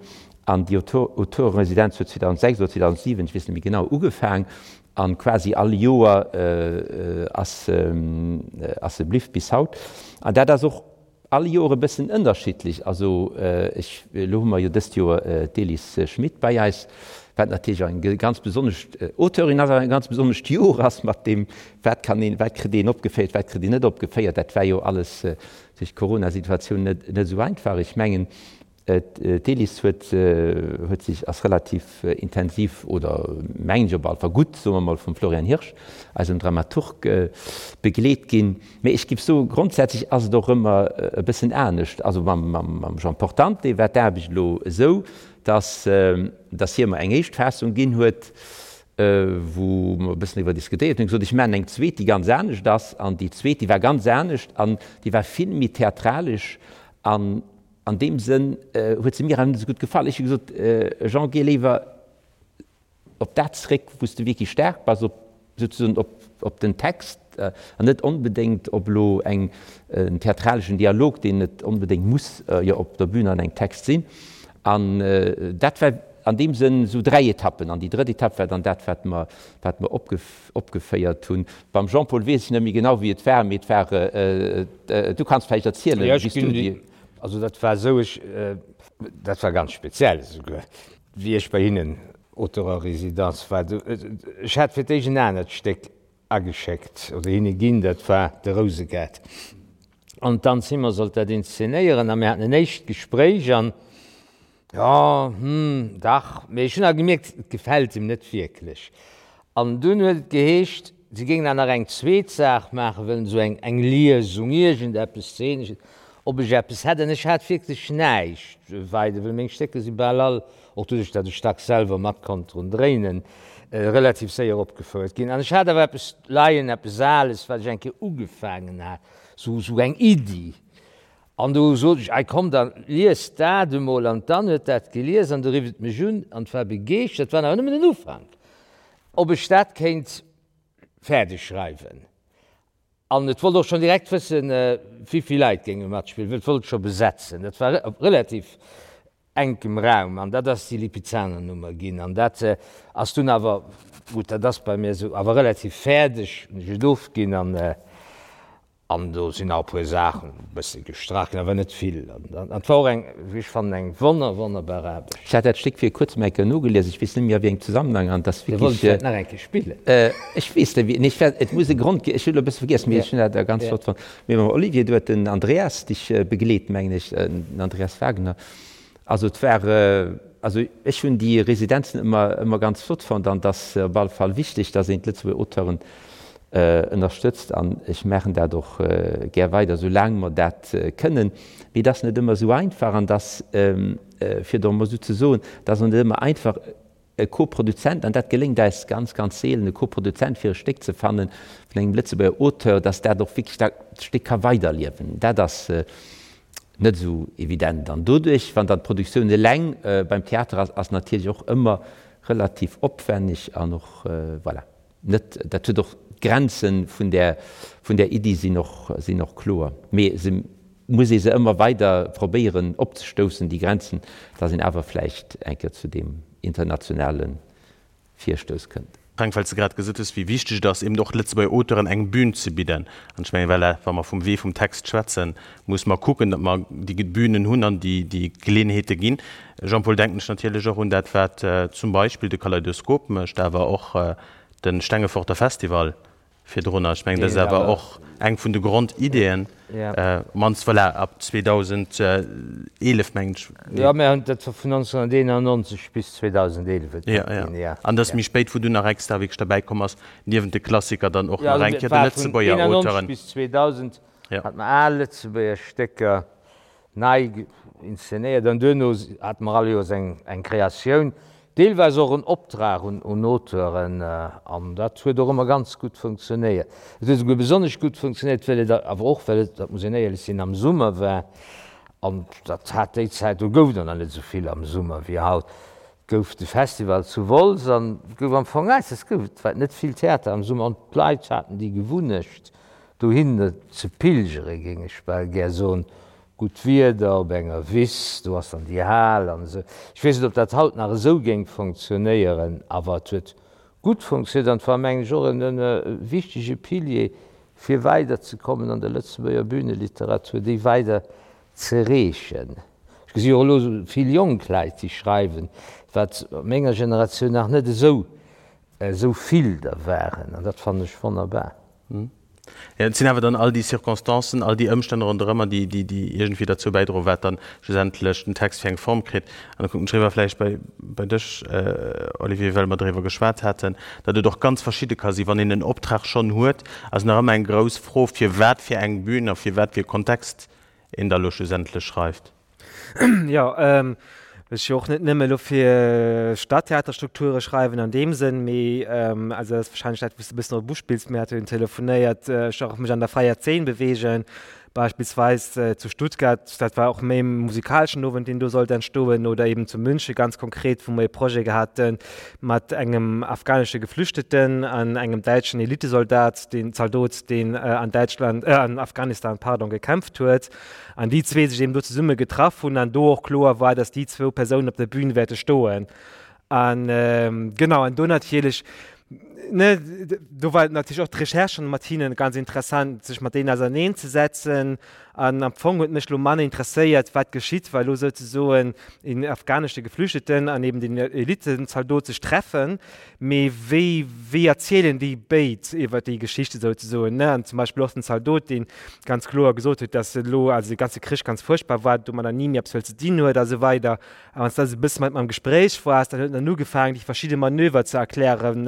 An déi Auteureresidenz huet 2006 oder 2007, ech weess net méi genau, ugefaang. A quasi all Joer ass se bliww bis haut. An dat ass och all Joer e bëssen ënnerschiddlech. Also ech, elo hu mer jo dëst Joer d'Elis Schmit bei eis, wat natierlech och eng ganz besonnesch Auteurin ass, awer e ganz besonnescht Joer ass mat deem, wat kann een, wat kritt een opgeféiert, wat kritt een net opgeféiert. Dat war jo alles duerch d'Corona-Situatioun net esou einfach. Ech mengen, d'Elis huet huet sech, ass relativ intensiv, oder mengen ech op alle Fall gutt, soe mer mol, vum Florian Hirsch, eisem Dramaturg, begleet ginn. Mee ech géif soen, grondsätzlech ass et och ëmmer e bëssen anescht. Also mam Jean Portante war d'Aarbecht elo esou, datt datt hie mer eng éischt Fassung ginn huet, wou mer e bëssen driwwer diskutéiert hunn, gesot, ech maachen eng zweet, déi ganz anescht ass. An déi zweet, déi war ganz anescht an déi war vill méi theatralesch an an deem Sënn huet se mir awer net esou gutt gefall. Ech hu gesot, Jean, géi léiwer op dat zréck, wou s de wierklech staark bass, op souzesoen op, op den Text an net onbedéngt op elo eng, en theatraleschen Dialog, deen net onbedéngt muss jo op der Bühn an engem Text sinn. An dat war an deem Sënn esou 3 Etappen. An déi drëtt Etapp war dann dat, wat mer, wat mer opgeféiert hunn. Beim Jean-Paul weess ech net méi genau, wéi et war, mee et war, du kanns vläicht erzielen, wéi s du déi. Also dat war esou, ech, dat war ganz speziell esouguer, wéi ech bei hinnen Auteur en résidence war. Ech hat fir d'éischt en anert Stéck ageschéckt oder hinne ginn, dat war de Rousegaart. An d'Anne Zimmer sollt dat inszenéieren a mir haten en éischt Gespréich an. Jo, hm, dach, mee ech hunn awer gemierkt, et gefält him net wierklech. An dunn huet et geheescht, si géingen awer nach eng zweet Saach maache wëllen, esou eng, eng Liesung, iergendeppes Zeenesches, ob ech eppes hätt. An ech hat wierklech näischt weider, well meng Stécker si bal all, och doduerch, datt ech dacks selwer mat konnt drun dréinen, relativ séier opgefouert ginn. An ech hat awer eppes leien, eppes Ales, wat ech eng Kéier ugefaangen hat, esou, esou eng Iddi. An du sot ech, Ei komm, da lies dat emol. An d'Anne huet dat gelies an du rifft et mech un an war begeeschtert, war awer nëmmen den Ufank, ob ech dat kéint fäerdeg schreiwen. An et wollt och schonn direkt wëssen, wéivill Leit géinge matspillen, well et wollt scho besetzen. Dat war op relativ enkem Raum an dat ass déi Lipizzaner-Nummer ginn. An dat ass dunn awer, gutt, dat ass bei mir esou, awer relativ fäerdeg hunn ech et ofginn an, An do sinn nach e puer Saachen e bësse gestrach ginn, awer net vill. An et war och eng, wéi ech fannen, eng wonner, wonnerbar Aarbecht. Ech hat dat Stéck vir kuerzem eng Kéier nogelies, ech weess net méi a wéi engem Zesammenhang, an et ass Dir wollt et wierklech. vläicht nach eng Kéier spillen? Ech weess net wéi, nee, ech war, et muss e Grond gi, ech hunn elo e bësse vergiess, mee ech hunn dat ganz flott fonnt. Mee mam Olivier, do huet den Andreas dech begleet, mengen ech, den Andreas Wagner. Also et war, also ech hunn déi Residenzen ëmmer, ëmmer ganz flott fonnt an et ass op alle Fall wichteg, datt een d'Lëtzebuerger Auteuren ënnerstëtzt an ech maachen dat och gär weider, esou laang mer dat kënnen. Mee et ass net ëmmer esou einfach an et ass, fir et och emol esou ze soen, et ass och net ëmmer einfach e Koproduzent, an dat geléngt eis ganz, ganz seelen, e Koproduzent fir e Stéck ze fanne vun engem Lëtzebuerger Auteur, datt dat och wierklech dat Stéck ka weiderliewen. Dat ass net esou evident an doduerch, wann dann d'Produktioun eleng beim Theater ass, ass natierlech och ëmmer relativ opwenneg an och, voilà. Net, dat huet och, d'Grenze vun där, vun där Iddi sinn och, sinn och kloer, mee se muss ee se ëmmer weider probéieren opzestoussen, déi Grenzen, dass een awer vläicht eng Kéier zu deem internationale Virstouss kënnt. Frank, well s de grad gesot hues, wéi wichteg et ass, eben och Lëtzebuerger Auteuren eng Bühn ze bidden. An ech mengen, voilà, wa mer vum Wee vum Text schwätzen, muss mer kucken, datt mer déi Bühnen hunn an déi, déi Geleeënheete ginn. Jean-Paul, denken ech natierlech och un dat, wat zum Beispill de Kaleidoskop mécht, awer och de Stengeforter Festival virdrunner. Ech mengen, dat ass awer och eng vun de Grondiddeen, op d'mannst, voilà, ab 2011, mengen ech. Jo, mir hunn dat vun 1991 bis 2011 et ginn, jo. An dat ass méi spéit, wou dunn nach extra wierklech derbäi komm ass, niewent de Klassiker dann och nach eng Kéier de Lëtzebuerger Auteuren. Jo, also et war vun 1991 bis 2000 hate mer al Lëtzebuerger Stécker. nei inszenéiert an duerno hate mer all Joers eng Kreatioun, deelweis och en Optrag un Auteuren an dat huet och ëmmer ganz gutt funktionéiert. Et huet esouguer besonnesch gutt funktionéiert, well et awer och, well et, dat muss een éierlech sinn, am Summer war an dat hat déi Zäit, do gouf et och nach net esou vill am Summer wéi haut, gouf de Festival zu Wolz an gouf am Fong eis, es gouf, et war net vill Theater am Summer an d'Leit haten déi Gewunnecht, Dohin ze pilgere géing ech bal gär soen. Gutt Wieder op enger Wiss, do ass dann déi Hal an esou. Ech weess net, ob dat haut nach esou géing fonctionnéieren, awer et huet gutt fonctionnéiert an et war, mengen ech, och e wichtege Pilier, fir weiderzekommen an der Lëtzebuerger Bühneliteratur, déi weider z'ereechen. Ech gesi och elo vill jonk Leit, déi schreiwen, wat a menger Generatioun nach net esou esou vill der waren, an dat fannen ech wonnerbar. Jo, et sinn awer dann all déi Circonstancen, all déi Ëmstänn ronderëmmer, déi, déi, déi iergendwéi derzou bäidroen, wat dann schlussendlech den Text fir eng Form kritt. An da kucken ech eriwwer vläicht bei, bei dech, Olivier, well mer driwwer geschwat haten, datt et och ganz verschidde ka sinn. Wann een en Optrag schonn huet, ass nach ëmmer eng grouss Fro, fir wat fir eng Bühn a fir wat fir e Kontext een da lo schlussendlech schreift. Jo, ech jo och net nëmme elo fir Stadtheaterstrukture schreiwen an deem Sënn, mee also dat ass wahrscheinlech dat, wou s de e bëssen drop uspills, mir hate jo telefonéiert, ech och mech an der fräier Zeen beweegen, beispillsweis zu Stuttgart, dat war och méi e musikaleschen Owend, deen do sollt entstoen, oder eben zu München ganz konkret, wou mer e Projet gehat hu mat engem afghanesche Geflüchteten an engem däitschen Elitesoldat, deen Zaldot, deen an Däitschland, an Afghanistan, pardon, gekämpft huet. An déi zwee sech eben do zesumme getraff hunn an do och kloer war, dass déi zwou Persounen op der Bühn wäerte stoen. An genau, an do natierlech. Ne, do war natierlech och d'Recherche schonn mat hinnen ganz interessant, sech mat deenen auserneen ze setzen. An am Fong huet mech elo manner interesséiert, wat geschitt, wa elo souzesoen een afghanesche Geflüchteten an eben den Elitenzaldot sech treffen, mee wéi, wéi erzielen déi béid iwwer déi Geschichte souzesoen, ne? An zum Beispill och den Zaldot, dee ganz kloer gesot huet, dass elo also de ganze Krich ganz fuerchtbar war, domadder ni méi eppes wëllt ze dinn huet a sou weider. A wann s de also e bësse mat em am Gespréich waars, dann huet en dann ugefaangen, déi verschidde Manöver ze erklären,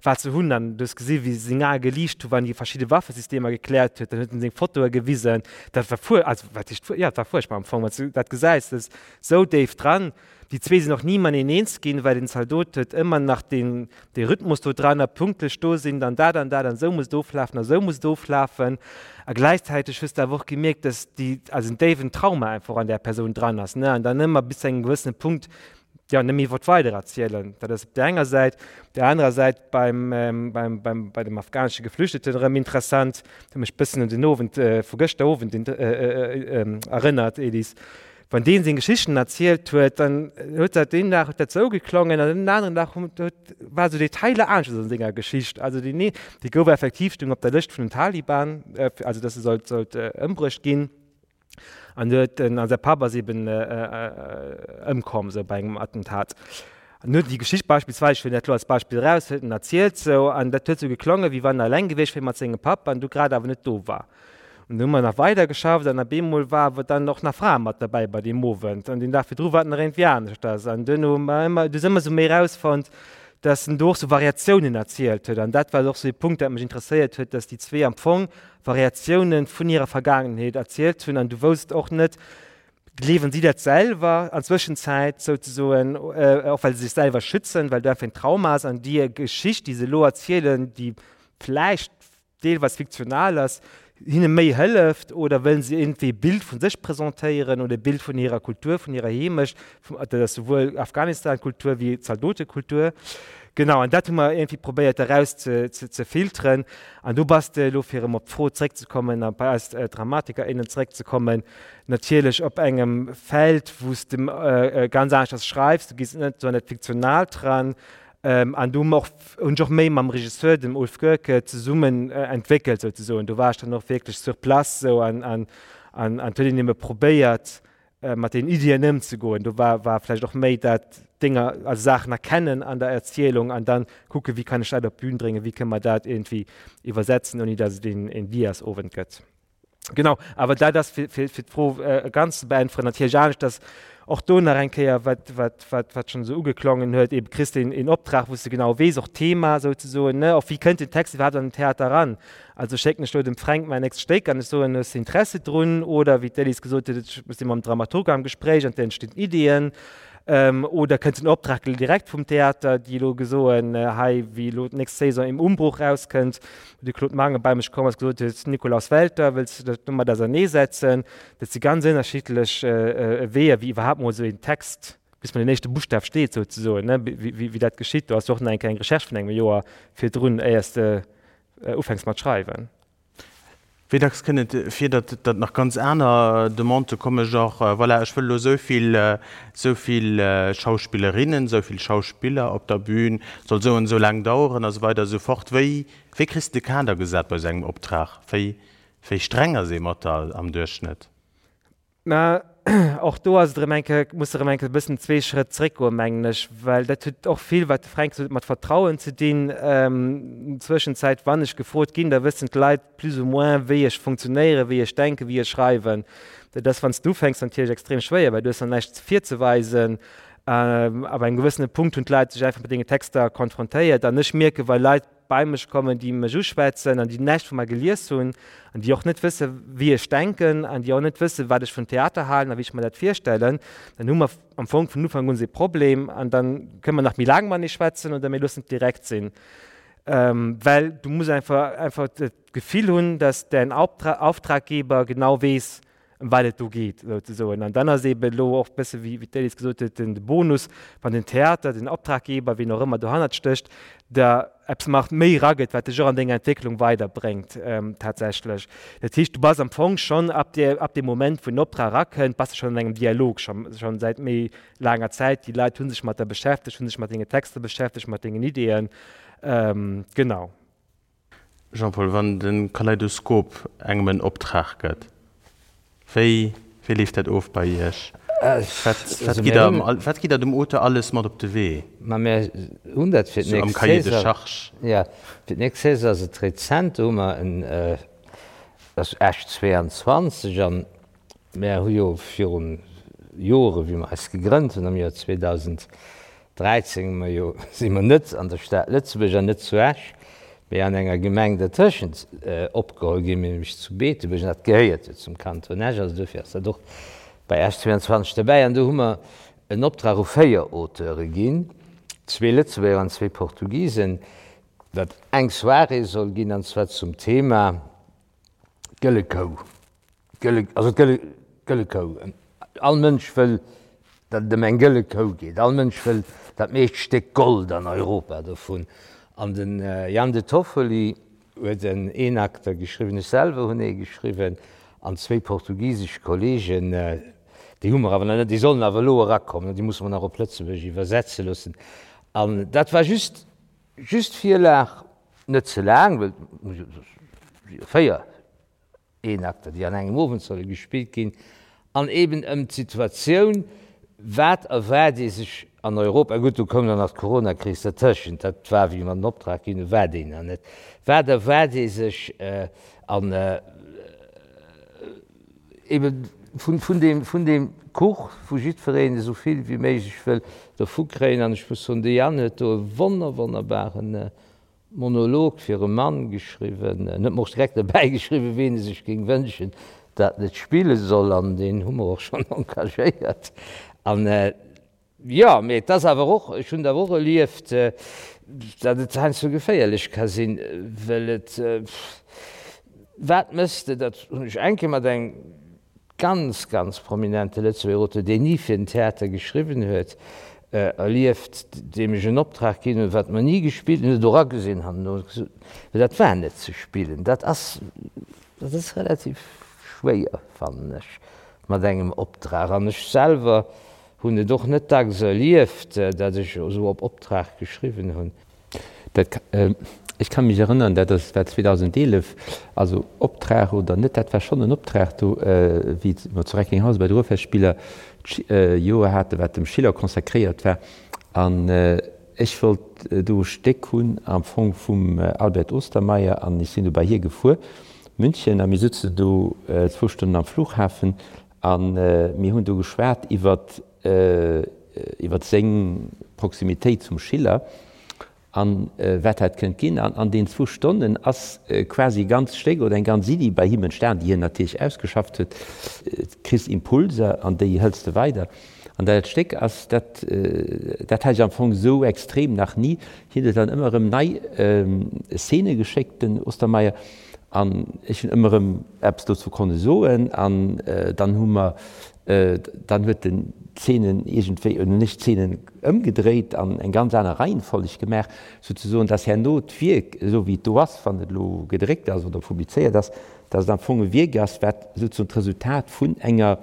wat se hunn. An du hues gesi wéi seng Ae geliicht hu wann en déi verschidde Waffesystemer gekläert huet. Dann huet en seng Fotoe gewisen. Dat war fuer, also wat heescht fuer, jo, et war fuerchtbar am Fong, wann s du dat gesäis, dat ass esou déif dran. Déi zwee sinn och ni mateneen eens ginn, well den Zaldot huet ëmmer nach deen, dee Rhythmus do dran a pünktlech do sinn, dann dat an dat an esou muss et oflafen a esou muss et oflafen. A gläichzäiteg hues de awer och gemierkt, dass déi, also en déiwen Trauma einfach an där Persoun dran ass, ne, an dann ëmmer bis zu engem gewëssene Punkt, jo, net méi wollt weidererzielen. Dat ass op där enger Säit. Op där anerer Säit beim, beim, beim, bei dem afghanesche Geflüchteten erëm interessant, huet mech bëssen un den Owend vu gëschter Owend erënnert, Elise, Wann deen seng Geschichten erzielt huet, dann huet dat deen Dag huet dat sou geklongen an den aneren Dag huet war sou Detailer aneschters an senger Geschicht. Also deen ee, dee gouf effektiv, stoung op der Lëscht vun den Taliban, also dass e sollt sollt ëmbruecht ginn an huet en a säi Papp ass eben ëmkomm sou bei engem Attentat. An huet déi Geschicht beispillsweis, ech huelen dat elo als Beispill eraus, huet en erzielt sou an dat huet sou geklongen, wéi wann en eleng gewiescht wier mat sengem Papp an du grad awer net do war. An du hu mer nach weider geschafft an op eemol war awer dann och nach Frae mat derbäi bei deem Owend an deen Dag virdru war et nach iergendwéi aneschters. An duerno hu mer ëmmer, du hues ëmmer sou méi erausfonnt, dass en do och sou Variatiounen erzielt huet. An dat war och sou ee Punkt, dat mech interesséiert huet, dass déi zwee am Fong Variatiounen vun hirer Vergaangenheet erzielt hunn an du wousst och net, gleewen si dat selwer an Zwëschenzäit souzesoen, och well se sech selwer schützen, well do einfach en Trauma ass an déi Geschicht, déi se elo erzielen, déi vläicht deelweis fiktional ass, hinne méi hëlleft oder wëllen se iergendwéi e Bild vu sech presentéieren oder e Bild vun hirer Kultur, vun hirer Heemecht, dat ass souwuel Afghanistan-Kultur wéi Zaldotekultur. Genau, an dat hu mer iergendwéi probéiert eraus ze, ze filteren. An do bass de elo, fir erëm op d'Fro zréckzekommen a bei eis Dramatiker, innen zréckzekommen, natierlech op engem Feld, wou s de ganz aneschters schreifs, du gees net esou an dat Fiktionaalt ran, An do hu mer och, hunn ech och méi mam Regisseur, dem Ulf Goerke, zesummen entwéckelt souzesoen. Do war ech dann och wierklech sur place esou an an an an huet een ebe probéiert mat den Iddien ëmzegoen. Do war war vläicht och méi dat Dénger, also Saachen erkennen an der Erzielung an dann kucke wéi kann ech dat op d'Bün bréngen, wéi kënne mer dat iergendwéi iwwersetzen, ouni datt et een een Diasowend gëtt. Genau, awer dat ass fir, fir, fir d'Fro äh, ganz ze beäntweren natierlech anescht, dass och do nach eng Kéier, wat, wat, wat, wat schonn esou ugeklongen huet, eben kriss de een Optrag, wou s de genau weess, och d'Thema souzesoen, ne, och wéi kënnt den Text iwwerhaapt an den Theater eran? Also schécken ech do dem Fränk mäin nächst Stéck an ech soen, hues de Interesse drun? Oder wéi d'Elise gesot huet, ech si mam Dramaturg am Gespréich an et entstinn Iddien. Oder kënnt den Optrag direkt vum Theater, déi elo gesoen, hei, wéi elo d'nächst Saison Im Umbruch rauskënnt, wou de Claude Mangen bei mech komm ass, gesot huet, Nikolaus Welter, wëlls de dech domat auserneesetzen? Dat si ganz ënnerschiddlech Weeër, wéi iwwerhaapt mol esou een Text, bis mol den éischte Buschtaf steet souzesoen, ne, wéi dat geschitt. Do ass jo och nach eng kleng Recherche vun engem Joer virdrun, éiers de ufänks mat schreiwen. Wéi dacks kënnt et vir, datt datt nach ganz aner Demandë kommen, genre, voilà, ech wëll elo esou vill, esou vill Schauspillerinnen, esou vill Schauspiller op der Bühn, soll esou an esou laang daueren a sou weider a sou fort. Wéi, wéi kriss de de Kader gesat bei esou engem Optrag? Wéi, wéi streng ass ee mat der am Duerchschnëtt? Mä och do ass et erëm eng Kéier, muss de erëm eng Kéier e bëssen zwee Schrëtt zréckgoen, mengen ech, well dat huet och vill, wat de Fränk gesot huet, mat Vertrauen ze dinn. Zwëschenzäit, wann ech gefrot ginn, da wëssen d'Leit plus ou moins, wéi ech funktionéieren, wéi ech denken, wéi ech schreiwen. Dat ass, wann s de ufänks, natierlech extrem schwéier, well du hues nach näischt virzeweisen. Ab engem gewëssene Punkt hunn d'Leit sech einfach mat denge Texter konfrontéiert an ech mierken, wa Leit bei mech kommen, déi mech uschwätzen an déi näischt vu mer gelies hunn an déi och net wësse wéi ech denken an déi och net wësse wat ech vun Theater halen a wéi ech mer dat virstellen, dann hu mer am Fong vun Ufank un e Problem an dann kënne mer nach méi laang matenee schwätzen oder mir loossen et direkt sinn. Well du muss einfach einfach d'Gefill hunn, dass däin Auftraggeber genau weess, ëm wat et do geet souzesoen. An dann ass eeben elo och e bësse wéi d'Elise gesot huet, den Bonus, wann den Theater, den Optraggeber, wien och ëmmer dohannert stécht, der eppes nach méi eragëtt, wat dech och an denger Entwécklung weiderbréngt tatsächlech. Dat heescht, du bass am Fong schonn ab där, ab deem Moment, wou den Optrag erakënnt, bass de schonn an engem Dialog, scho schonn säit méi laanger Zäit. Déi Leit hu sech mat der beschäftegt, hu sech mat denge Texter beschäftegt, mat dengen Ideeën. Genau. Jean-Paul, wann de Kaleidoskop engem en Optrag gëtt, wéi wéi leeft dat of bei Iech? Wat wat gitt der wat gitt der dem Auteur alles mat op de Wee? Ma mir hunn dat fir d'nächst Cahier de charges. Jo, fir d'nächst Saison ass et rezent, do hu mer en, ass Esch 22 an Mär hu jo virun Jore wéi mer eis gegrënnt hunn am Joer 2013 hu mer jo, si mer net an der Stad Lëtzebuerg an net zu Esch, mee an enger Gemeng dertëschent opgeholl ginn, nämlech zu Beetebuerg an dat gehéiert jo zum Kanton Esch, also dofir ass dat och bei Esch 22 derbäi. An do hu mer en Optrag u 4 Auteure ginn, zwee Lëtzebuerger an zwee Portugisen, datt eng Soirée soll ginn an zwar zum Thema d'Gëlle Kou. D'gëlle, also d'gëlle, gëlle Kou. All Mënsch wëll, datt et ëm eng gëlle Kou geet. All Mënsch wëll dat meescht Stéck Gold an Europa dovun. An de Jan De Toffoli huet en Eenakter geschriwwen, ech selwer hunn ee geschriwwen an zwéi portugisesch Kollegen, déi hu mer awer nach net, déi sollen awer elo erakommen, déi musse mer nach op Lëtzebuergesch iwwersetze loossen. An dat war just, just d'Virlag, net ze laang, well et si jo 4 Eenakter, déi an engem Owend solle gespillt ginn, an eben ëm d'Situatioun, wat erwaart ee sech an Europa, gutt, do koum dann nach d'Coronakris dertëschent, dat war, wéi mer den Optrag ginn hunn, war déi nach net, wat erwaart ee sech an ebe vun deem, vun deem Kuch, wou jiddwereen esou vill wéi méiglech wëll dervu kréien. An ech muss soen, de Yann huet do e wonner, wonnerbaren Monolog fir e Mann geschriwwen. En huet mer och direkt derbäi geschriwwen, ween e sech géing wënschen, dat en et spille soll, an deen hu mer och schonn engagéiert. An jo, mee et ass awer och, ech hunn et awer och erlieft, datt et heiansdo geféierlech ka sinn, well et, wat mëss de, dat hunn ech eng Kéier mat engem ganz, ganz prominente Lëtzebuerger Auteur, deen ni fir den Theater geschriwwen huet, erlieft, deem ech en Optrag ginn hunn, wat mer ni gespillt hunn, huet och agesinn herno, huet gesot, mä dat war net ze spillen. Dat ass, dat ass relativ schwéier, fannen ech, mat engem Optrag. An ech selwer hunn et och net dacks erlieft, datt ech esou op Optrag geschriwwen hunn. Dat, ech ka mech erënnern, dat ass, war 2011, also Optrag oder net, dat war schonn en Optrag do, wéi mer zu Recklinghausen bei de Ruhrfestspieler d'Joer haten, wat dem Schiller consacréiert war. An ech wollt do e Stéck hunn am Fong vum Albert Ostermaier an ech sinn du bei hie gefuer, München, a mir sutzen do zwou Stonnen am Flughafen a mir hunn do geschwat iwwert iwwer seng Proximitéit zum Schiller an wat dat kënnt ginn. An an deenen zwou Stonnen ass quasi e ganzt Stéck oder eng ganz Iddi bei him entstan, déi hien natierlech ausgeschafft huet. Kriss Impulser an déi hëls de weider. An dat Stéck ass, dat dat hat ech am Fong esou extrem nach ni. Hien huet dann ëmmer erëm nei Szene geschéckt, den Ostermeier, an ech hunn ëmmer erëm eppes dozou konne soen. An dann hu mer Dann huet en d'Zeenen iergendwéi, oder hunn ech d'Zeenen ëmgedréit an eng ganz aner Reihenfolleg gemaach, souzesoen, dass herno d'Wierk, esou wéi et do ass, wann et elo gedréckt ass oder publizéiert ass, dass et am Fong e Wierk ass, wat souzesoen d'Resultat vun enger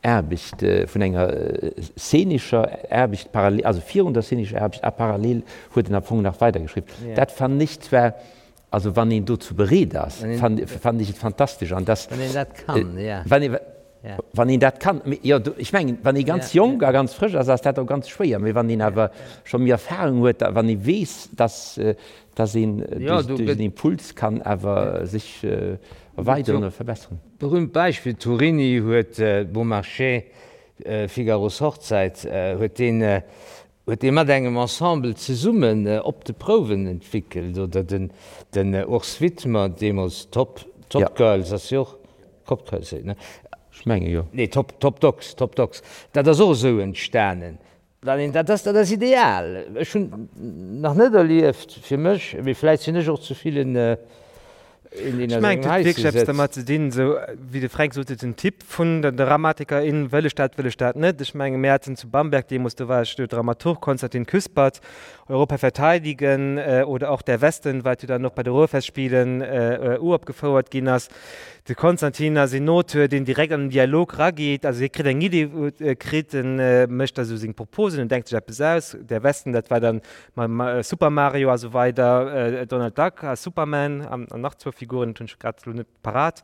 Aarbecht, vun enger szenescher Aarbecht parallel, also virun der szenescher Aarbecht a parallel huet en am Fong nach weidergeschriwwen. Dat fannen ech zwar Also wann een dozou bereet ass, fannen ech et fantastesch. An dass, Wann een dat kann, ja. Wann ee, wann een dat kann. Mee jo, ech mengen, wann ee ganz jonk a ganz frësch ass, ass dat och ganz schwéier. Mee wann een awer scho méi Erfahrung huet, a wann ee weess, dass, dass een duerch en Impuls kann awer sech erweideren oder verbesseren. Berühmt Beispill, Turini huet Beaumarchais, Figaros Hochzeit, huet deen Huet dee mat engem Ensemble zesummen op de Prouwen entwickelt, oder den den Urs Widmer, deemools Top Top Girls ass jo och Top Girls, ne? Ech menge jo. Nee, Top Top Dogs, Top Dogs, dat ass och esou entstanen. Wann een, dat ass dat ass ideal. Ech hunn nach net erlieft fir mech, mee vläit sinn ech och ze vill en. Een, deen Ech a mengen, sengem et huet Haische wierklech eppes sëtzt. dermat ze dinn, esou wéi de Fränk sot, den Typ vun der Dramatikerin, wëll ech dat, wëll ech dat net. Ech menge mir haten zu Bamberg deemools, do war ech do Dramaturg, Konstantin Küspert, Europa verteidigen oder auch Der Westen, wat jo dann och bei de Ruhrfestspielen uropgefouert ginn ass. De Konstantin ass een Auteur, deen direkt an den Dialog rageet, also hie kritt eng Idee, kritt en, mécht da sou seng Proposen, en denkt sech eppes aus, Der Westen, dat war dann mam Super Mario a sou weider, Donald Duck a Superman an nach zwou Figuren, dat hunn ech grad elo net parat.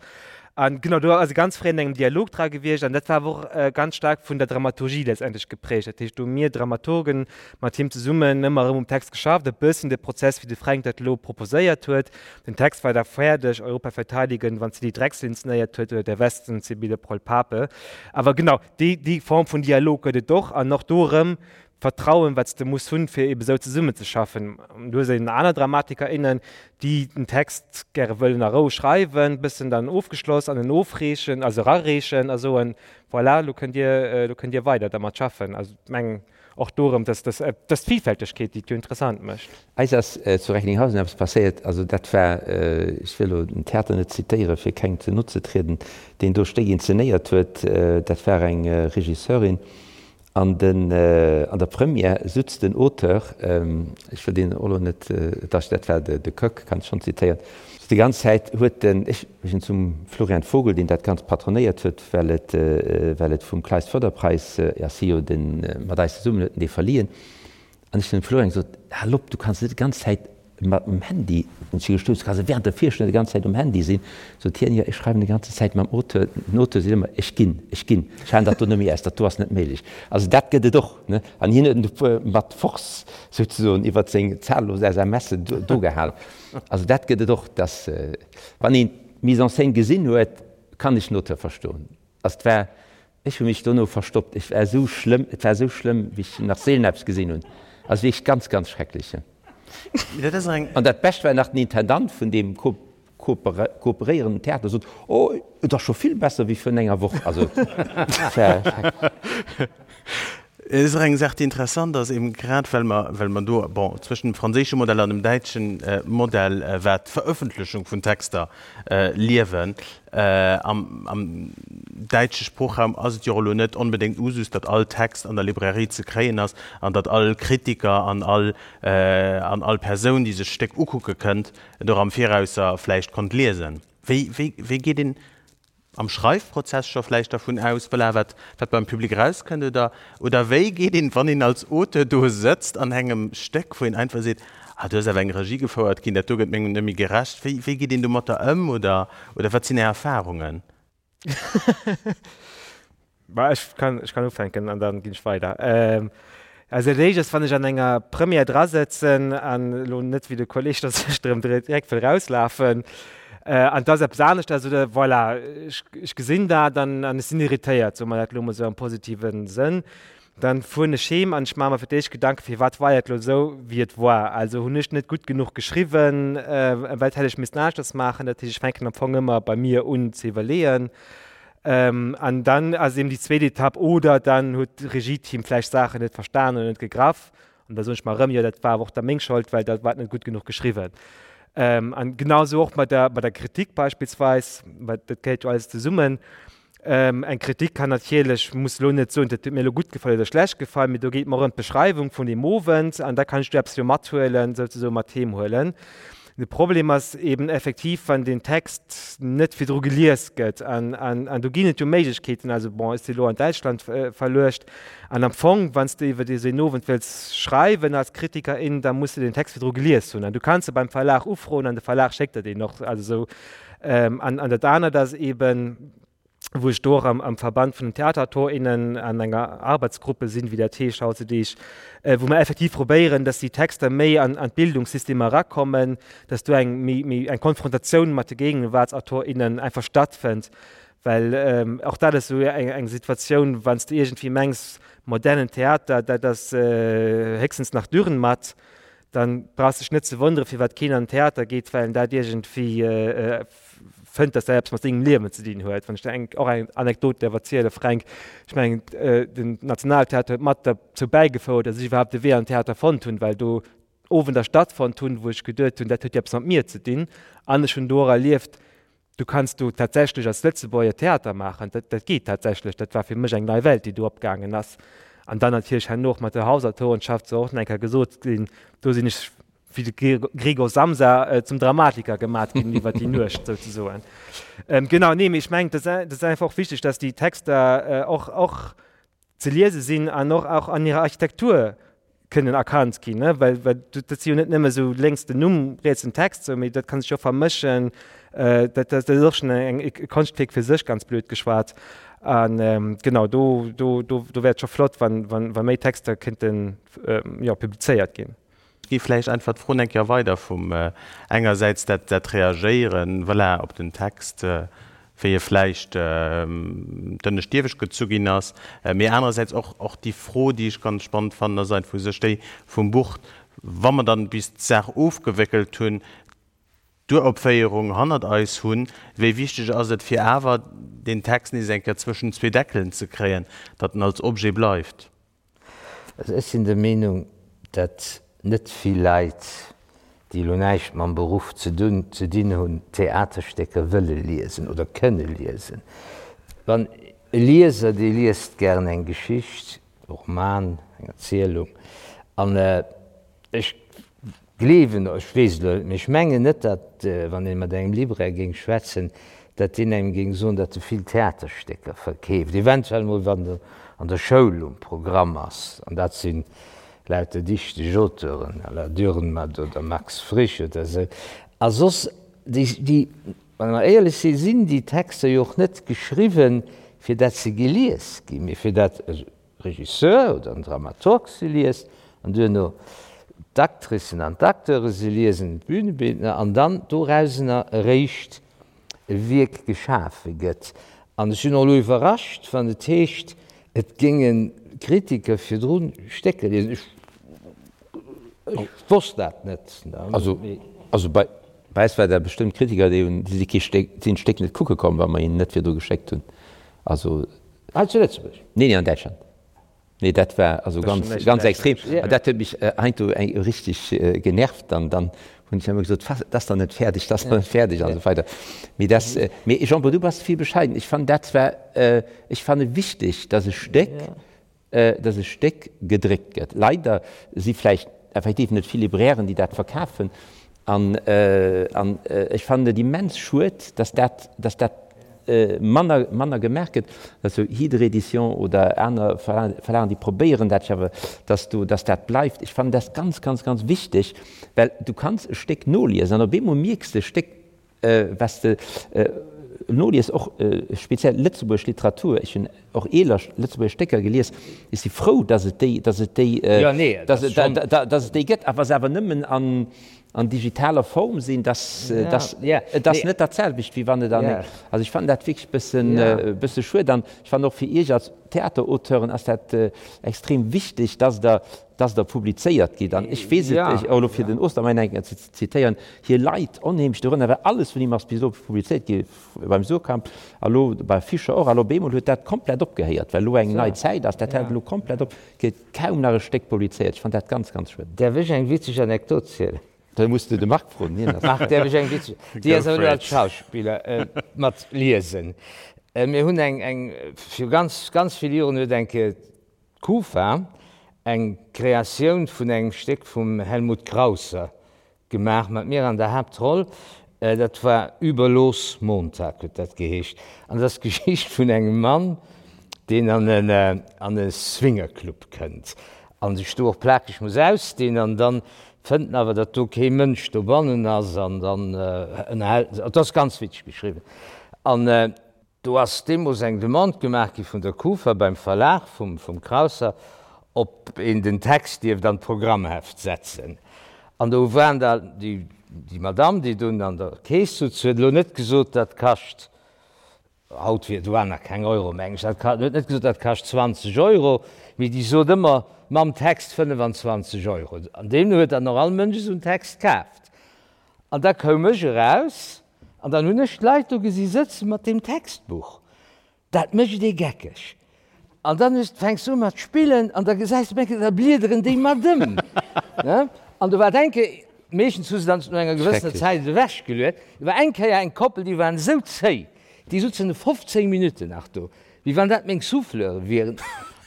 An genau, do ass e ganz fréi an engem Dialog dra gewiescht an dat war awer och ganz staark vun der Dramaturgie letztendlech geprägt. Dat heescht, do hu mir Dramaturgen mat him zesummen ëmmer erëm um Text geschafft, e bëssen de Prozess, wéi de Fränk dat elo proposéiert huet. Den Text war da fäerdeg, Europa verteidigen, wann d'Cilly Drexel inzenéiert huet, oder Der Westen, Sibylle Proll-Pape. Awer genau, déi, déi Form vun Dialog gëtt et och an och do erëm d'Vertrauen, wat s de muss hunn, fir ebe sou zesummenzeschaffen. Du hues eben aner Dramatiker, innen, déi den Text gäre wëllen a Rou schreiwen, bëssen dann ofgeschloss an en ofreechen, also erareechen a soen, voilà, lo kënnt Dir, lo kënnt Dir weider dermat schaffen. Also ech mengen och do erëm, dass, dass, dass d'Villfältegkeet, déi et jo interessant mécht. Eis ass zu Recklinghausen eppes passéiert, also dat war, ech wëll elo den Theater net zitéieren, fir kengem ze no ze trieden, deen do Stéck inzenéiert huet, dat war eng Regisseurin, An den, an der Première sutz den Auteur, ech wëll deen och elo net, dach dat war de Koeck, kann ech schonn zitéieren, déi ganz Zäit huet den, ech sinn zum Florian Vogel, deen dat Ganzt patronéiert huet, well et, well et vum Kleist Förderpreis ass, hie jo den, mat eis zesummen huet en dee verliehen, An ech hunn dem Florian gesot, Hal op, du kanns net déi ganz Zäit mat dem Handy, hunn ech gestouss, du kanns net während der Virstellung déi ganz Zäit um Handy sinn. Sot hien, Jo, ech schreiwen déi ganze Zäit mam Auteur. Den Auteur seet ëmmer, Ech ginn, ech ginn, ech halen dat do net méi aus, dat do ass net méiglech. Also dat gëtt et och, ne? An hien huet en mat Force souzesoen iwwert seng zahllos SMSen do gehalen. Also dat gëtt et och, dass, wann een d'Mise en scène gesinn huet, kann ech den Auteur verstoen. Also et war Ech hu mech dono verstoppt. Ech war esou schlëmm, et war esou schlëmm, wéi ech nach seelen eppes gesinn hunn. Also wierklech ganz, ganz schrecklech. An dat Bescht war nach, den Intendant vun deem kooperéierenden Theater sot, Oh, et ass scho vill besser wéi virun enger Woch. Also et war schrecklech. Et ass och eng Saach, déi interessant ass, eben grad well mer, well mer do, bon, zwëschen dem franséische Modell an dem däitsche Modell, wat d'Verëffentlechung vun Texter liewen. Am, am däitsche Sproochraum ass et jo och elo net onbedéngt Usus, datt all Text an der Librairie ze kréien ass an datt all Kritiker an all, an all Persoun, déi sech d'Stéck ukucke kënnt, et och am Virausser vläicht konnt liesen. Wéi, wéi, wéi geet een am Schreifprozess scho vläicht dervun aus, voilà, wat, wat beim Public erauskënnt, oder, oder wéi geet een, wann een als Auteur do sëtzt an engem Stéck, wou een einfach seet, ah, do ass awer eng Regie gefouert ginn, dat do gëtt mengem net méi gerecht, wéi, wéi geet een domatter ëm, oder, oder wat sinn Är Erfahrungen? Bah, ech kann, ech kann ufänken an dann ginn ech weider. Ähm, also dat éischt ass, wann ech an enger Première drasëtzen an elo net wéi de Kolleg, datt ech drëm direkt wëll rauslafen, äh, an et ass eppes aneschters oder voilà, ech, ech gesinn dat an, an ech sinn irritéiert, soe mer dat elo mol esou am positive Sënn, dann fueren ech heem an ech maache mer fir d'éischt Gedanken, firwat war et elo esou, wéi et war. Also hunn ech net gutt genuch geschriwwen, äh, wat hätt ech missten aneschters maachen? Dat heescht, ech fänken am Fong ëmmer bei mir un ze iwwerleeën. An dann ass eben déi zweet Etapp, oder dann huet d'Regieteam vläicht Saachen net verstanen oder net gegraff. An da soen ech mer erëm, jo dat war awer och da meng Schold, well dat war net gutt genuch geschriwwen. An genau esou och mat der, mat der Kritik beispillsweis, well dat gehéiert jo alles zesummen. Eng Kritik kann natierlech, muss elo net soen, dat huet mir elo gutt gefall oder schlecht gefall, mee do geet mer ëm d'Beschreiwung vun deem Owend an da kann ech do eppes jo mathuelen, souzesoen mat heem huelen. De Problem ass eben effektiv, wann den Text net virdru gelies gëtt. An, an, an do ginn et jo Méiglechkeeten. Also bon, ech si lo an Däitschland verluecht. An am Fong, wann s de iwwer esou een Owend wëlls schreiwen als Kritiker, in, da muss de den Text virdru gelies hunn. An du kanns e beim Verlag ufroen an de Verlag schéckt der deen och. Also esou. An, an dat anert ass eben, wou ech do och am, am Verband vun den Theaterautorinnen an enger Arbeitsgruppe sinn, wéi dat heescht hautzedeeg, wou mer effektiv probéieren, dass déi Texter méi an, an d'Bildungssystemer erakommen, dass do eng méi, méi eng Konfrontatioun mat de Gegenwartsautorinnen einfach stattfënnt. Well och dat ass esou eng, eng Situatioun, wann s de iergendwéi mengs, modernen Theater, dat ass héchstens nach Dürrenmatt, dann brauchs dech net ze wonneren, firwat keen an den Theater geet, well en dat iergendwéi fënnt, dass dat eppes mat sengem Liewen ze dinn huet. Wann ech der eng, och eng Anekdot däerf erzielen, Fränk, ech mengen, den Nationaltheater huet mat derzou bäigefouert, dass ech iwwerhaapt de Wee an den Theater fonnt hunn, well do. Owender stattfonnt hunn, wou ech geduet hunn, dat huet jo eppes mat mir ze dinn. An ech hunn do och erlieft, du kanns do tatsächlech als Lëtzebuerger Theater maachen, dat, dat geet tatsächlech. Dat war fir mech eng nei Welt, déi do opgaangen ass. An dann natierlech herno och mat der Hausautorenschaft, soll och nach eng Kéier gesot sinn, do sinn ech wéi de Gregor Samsa zum Dramatiker gemat ginn iwwer déi Nuecht souzesoen. Genau, nee, mee ech mengen, dat ass einfach och wichteg, dass déi Texter och, och ze liese sinn an och och an hirer Architektur kënnen erkannt ginn, ne? Well, well dat si jo net nëmme sou lénks den Numm, riets den Text, sou, mee dat kann sech jo vermëschen. Dat, dat ass och schonn eng e Konschtwierk fir sech, ganz blöd geschwat. An genau, do, do, do, do wär et scho flott, wann, wann, wa méi Texter kéinten, jo, publizéiert ginn. Gi vläicht einfach d'Fro eng Kéier weider vum engersäits dat, dat Reagéieren, voilà, op den Text, wéi e vläicht d'ënnescht iewescht gezu ginn ass, mee anerersäits och, och déi Fro, déi ech ganz spannend fannen, ass einfach u sech déi vum Buch, wa mer dann bis d'Saach ofgewéckelt hunn, d'Uropféierung hannert eis hunn, wéi wichteg ass et fir awer deen Text nees eng Kéier zwëschen zwee Deckelen ze kréien, datt en als Objet bleift? Also ech sinn der Meenung, datt net vill Leit, déi elo näischt mam Beruff ze dunn ze dinn hunn, Theaterstécker wëlle liesen oder kënne liesen. Wann e Lieser, dee liest gären eng Geschicht, e Roman, eng Erzielung, an ech Gleewen, ech weess et elo net, mee ech mengen net, datt, wann ee mat engem Libraire géing schwätzen, datt deen engem géing soen, datt e vill Theaterstécker verkeeft, eventuell mol wann en an der Schoul um Programm ass, an dat si lauter dichteg Auteuren à la Dürrenmatt oder Max Frisch oder esou. A soss, déi, déi, wa mer éierlech sinn, sinn déi Texter jo och net geschriwwen, fir datt se gelies ginn, mee fir datt e Regisseur oder en Dramaturg se liest an duerno d'Actricen an d'Acteure se liesen, d'Bühnebildner, an dann dorausener eréischt e Wierk geschafe gëtt. An ech sinn och elo iwwerrascht, wann et heescht, et géinge Kritiker virdru Stécker liesen. Ech wosst dat net. Also bei eis war dat bestëmmt Kritiker, déi hunn, déi si kee Stéck, sinn d'Stéck net kucke komm, wa mer hinnen net virdru geschéckt hunn. Also. Hei zu Lëtzebuerg? Nee, nee, an Däitschland. Nee, dat war also ganz, ganz extrem. An dat huet mech heiansdo eng richteg genervt. Dann, dann hunn ech ëmmer gesot, Was, dat ass nach net fäerdeg, dat ass nach net fäerdeg an esou weider. Mee dat, mee Jean-Paul, du bass vill bescheiden. Ech fannen dat zwar, ech fanne wichteg, datt e Stéck, dass e Stéck gedréckt gëtt. Leider si vläicht effektiv net vill Librairen, déi dat verkafen. An ech fannen et immens schued, dass dat, dass dat manner, manner gemaach gëtt, dass esou Hydre Éditions oder aner Verlagen, déi probéieren dat jo awer, dass do, dass dat bleift. Ech fannen dat ganz, ganz, ganz wichteg, well du kanns e Stéck noliesen an op eemol mierks de, e Stéck Was de nolies, och speziell lëtzebuergesch Literatur, ech hunn och eeler lëtzebuergesch Stécker gelies, ech si frou, datt et déi, datt et déi, datt et déi gëtt, a wa se awer nëmmen an, an digitaler Form sinn, datt, datt, et ass net dat selwecht, wéi wann et an, also ech fannen dat wierklech bëssen, bësse schued. An ech fannen och fir Iech als Theaterauteuren ass dat extrem wichteg, datt Der, datt Der publizéiert gitt. An ech weess et, och elo fir den Ostermeyer eng Kéier ze zitéieren, Hie leit onheemlech dorënner, well alles vun him ass bis elo publizéiert gi beim Suhrkamp a lo bei Fischer och. A lo op eemol huet dat komplett opgehéiert, well elo eng nei Zäit ass. Dat hält elo komplett op, gëtt kaum nach e Stéck publizéiert. Ech fannen dat ganz, ganz schued. Däerf ech eng witzeg Anekdot zielen? Da muss de de Marc froen, hien ass. Marc, däerf ech eng witzeg, déi ass awer elo als Schauspiller, mat liesen. Mir hunn eng, eng, viru ganz, ganz vill Joren huet eng Kéier d'Kufa eng Kreatioun vun engem Stéck vum Helmut Krausser Gemaach mat mir an der Haaptroll. Dat war Über los Montag huet dat geheescht. An dat ass d'Geschicht vun engem Mann, deen an en an e Swingerclub kënnt a sech do och plakeg muss ausdinn. An dann fënnt en awer, datt do kee Mënsch dobannen ass an dann ënnerhält en sech. Et ass ganz witzeg geschriwwen. An Do ass deemools eng Demande gemaach gi vun der Kufa beim Verlag vum Krausser, ob een den Text dierft an d'Programmheft setzen. An do waren da déi Madamm, déi dunn an der Keess sutz, huet elo net gesot, dat kascht, haut wier, do waren nach keng Euro, meng ech, dat huet net gesot, dat kascht 20 Euro, mee déi sot ëmmer mam Text 25 Euro. An deemno huet dann och all Mënsch esou en Text kaaft. An da koum ech eraus an dann hunn ech d'Leit do gesi sëtze mat deem Textbuch. Dat mécht ee geckeg. An dann hues, fänks du u mat spillen an da gesäis du, da bliederen déi mat ëm. An do war et eng Kéier, meeschtens hu se dann no enger gewëssener Zäit et ewechgeluet, do war eng Kéier eng Koppel, déi waren esou zéi, déi sutzen 15 Minutten nach do, wéi wann dat meng Souffleure wieren.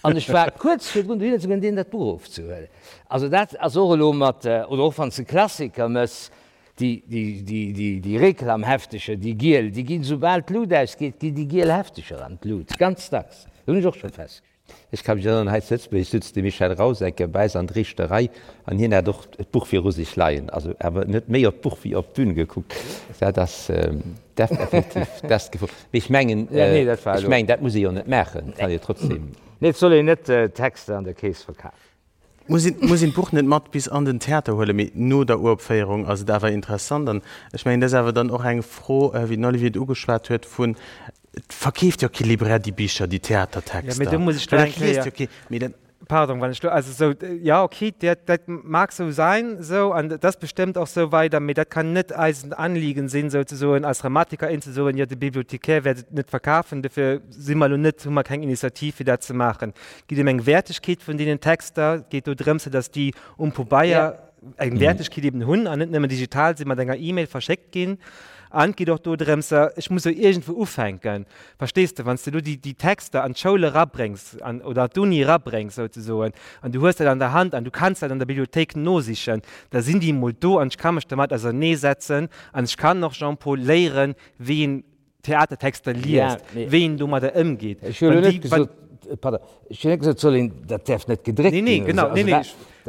An ech war kuerz virdrun dohinner ze goen, deenen dat Buch ofzehuelen. Also dat ass och elo mat, oder och wann s de Klassiker mëss, déi, déi, déi, déi, déi Reklamhefteger, déi giel, déi ginn, soubal d'Lut ausgeet, ginn déi giel Hefteger an d'Lut, ganz dacks. Dat hunn ech och scho festgestallt. Ech ka mech erënneren, hei zu Lëtzebuerg sutz de Michel Rausecker bei eis an d'Riichterei an hien hat och d'Buch viru sech leien, also awer en huet méi op d'Buch wéi op d'Bün gekuckt. Dat ass effektiv dat Gefor. Mee ech mengen, ech mengen, dat muss ee jo net maachen, et kann ee jo trotzdem. Nee, et soll een net Texter an der Keess verkafen. Muss een, muss een d'Buch net mat bis an den Theater huelen, mee no der Uropféierung ass et awer interessant. An ech mengen, dat ass awer dann och eng Fro, wéi den Olivier et ugeschwat huet, vun, et verkeeft jo kee Libraire déi Bicher, déi Theatertexter. Jo, mee do muss ech do eng Kéier. Jo kee, mee dat. Pardon, wann ech do, also esou, jo, okay, dat, dat mag esou sein, esou, an dat ass bestëmmt och esou weider, mee dat kann net eisen Anliegen sinn, souzesoen als Dramatiker, in ze soen, jo, de Bibliothecaire wäert et net verkafen, dofir si mer elo net, hu mer keng Initiativ, fir dat ze maachen. Et geet ëm eng Wäertegkeet vun deenen Texter. Et geet do drëms, datt déi um Pabeier eng Wäertegkeet eben hunn an net nëmmen digital sinn, mat enger E-Mail verschéckt ginn. An et geet och do drëms, ech muss jo iergendwou ufänken, verstees de, wann s de elo déi, déi Texter an d'Schoul erabréngs an, oder an d'Uni erabréngs souzesoen, an du hues dat an der Hand an du kanns dat an der Bibliothéik nosichen, da sinn déi emol do an ech ka mech dermat auserneesetzen an ech kann och, Jean-Paul, léieren, wéi een Theatertexter liest, wéi een domadder ëmgeet. Ech hunn elo net gesot, pardon, ech hunn net gesot, et soll een, dat däerf net gedréckt ginn. Nee, nee, genau, nee, nee,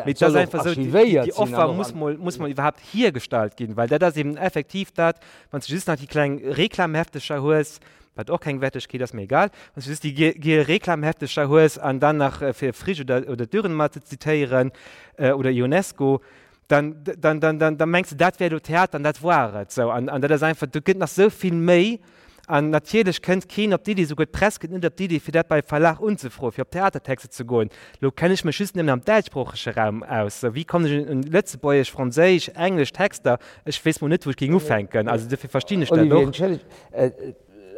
mee et ass einfach esou, déi Offer muss mol, muss mol iwwerhaapt hiergestallt ginn, well dat ass eben effektiv dat, wann s de just nach déi kleng Reklamheftecher hues, wat och keng Wertegkeet ass, mee egal, wann s de just déi giel Reklamheftecher hues an dann nach, fir Frisch oder, oder Dürrenmatt ze zitéieren, oder Ionesco, dann, dann, dann, dann, dann mengs de, dat wär elo Theater an dat war et. Sou, an, an dat ass einfach, do gëtt nach sou vill méi. An natierlech kënnt keen op d'Iddi, souguer d'Press kënnt net op d'Iddi, fir dat bei Verlag unzefroen, fir op Theatertexter ze goen. Elo kenne ech mech just nëmmen am däitschsproochege Raum aus. Sou, wéi kommen ech un lëtzebuergesch, franséisch, englesch Texter? Ech weess mol net, wou ech géing ufänken. Also dofir verstinn ech dat Olivier, och. entschëllegt,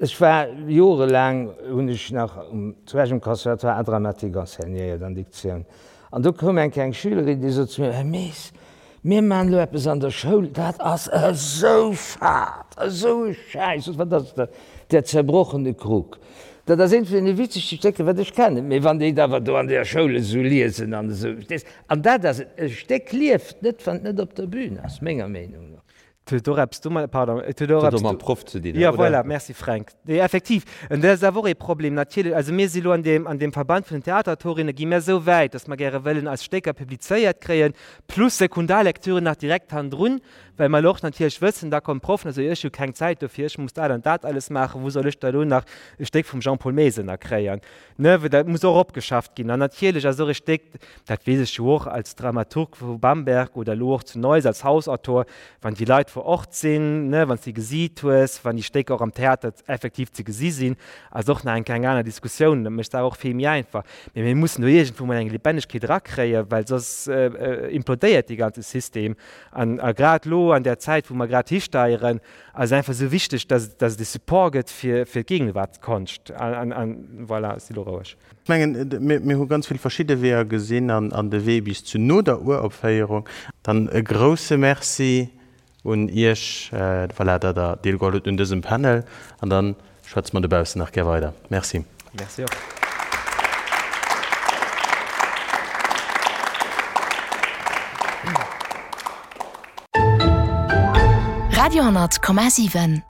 ech war jorelaang, hunn ech nach um, zu Esch um Conservatoire Art dramatique enseignéiert an Diktioun. An do koum eng kleng Schülerin, déi sot zu mir, Här Mees, mir maachen elo eppes an der Schoul, dat ass esou fad, esou e Schäiss. Sot, Wat ass dat? Der zerbrochene Krug. Dat ass eent vun deene witzegste Stécker, wat ech kennen. Mee wann déi et awer do an der Schoul esou liesen an esou, verstees? An dat ass et, e Stéck lieft net, wann et net op der Bühn ass, menger Meenung no. Et huet och eppes domat, pardon, et huet och eppes mam Proff ze dinn, ja, voilà, merci Fränk. Nee, effektiv, an dat ass awer och ee Problem natierlech. Also mir si elo an deem, an deem Verband vun den Theaterautorinnen, gi mir esou wäit, datt mer gäre wëllen eis Stécker publizéiert kréien, plus Sekundarlektüren nach direkt hannendrun, well mer elo och natierlech wëssen, da kommen d'Proffen a soen, ech hu keng Zäit dofir, ech muss dat an dat alles maachen, wou soll ech da elo nach e Stéck vum Jean-Paul Maes ënnerkréien? Ne, well dat muss och opgeschafft ginn. An natierlech ass och e Stéck, dat weess ech jo och als Dramaturg vu Bamberg oder elo och zu Neuss als Hausautor, wann déi Leit vor Ort sinn, ne, wann s de gesiit hues, wann déi Stécker och am Theater effektiv ze gesi sinn, ass och nach eng kleng aner Diskussioun. Dat mécht d'Saach och vill méi einfach. Mee mir mussen do iergendwou mol eng Lebendigkeet erakréien, well soss implodéiert dee ganze System. An a grad elo an där Zäit, wou mer grad histeieren, ass et einfach esou wichteg, dass dass et e Support gëtt fir fir d'Gegenwartskonscht. An an voilà, ech si lo roueg. Ech mengen, mir mir hu ganz vill verschidde Weeër gesinn an an de Wee bis zu no der Uropféierung. Dann e grouse Merci un Iech, voilà, datt Der deelgeholl hutt un dësem Panel. An dann schwätze mer dobaussen nach gär weider. Merci. Merci och. Radio 10,7.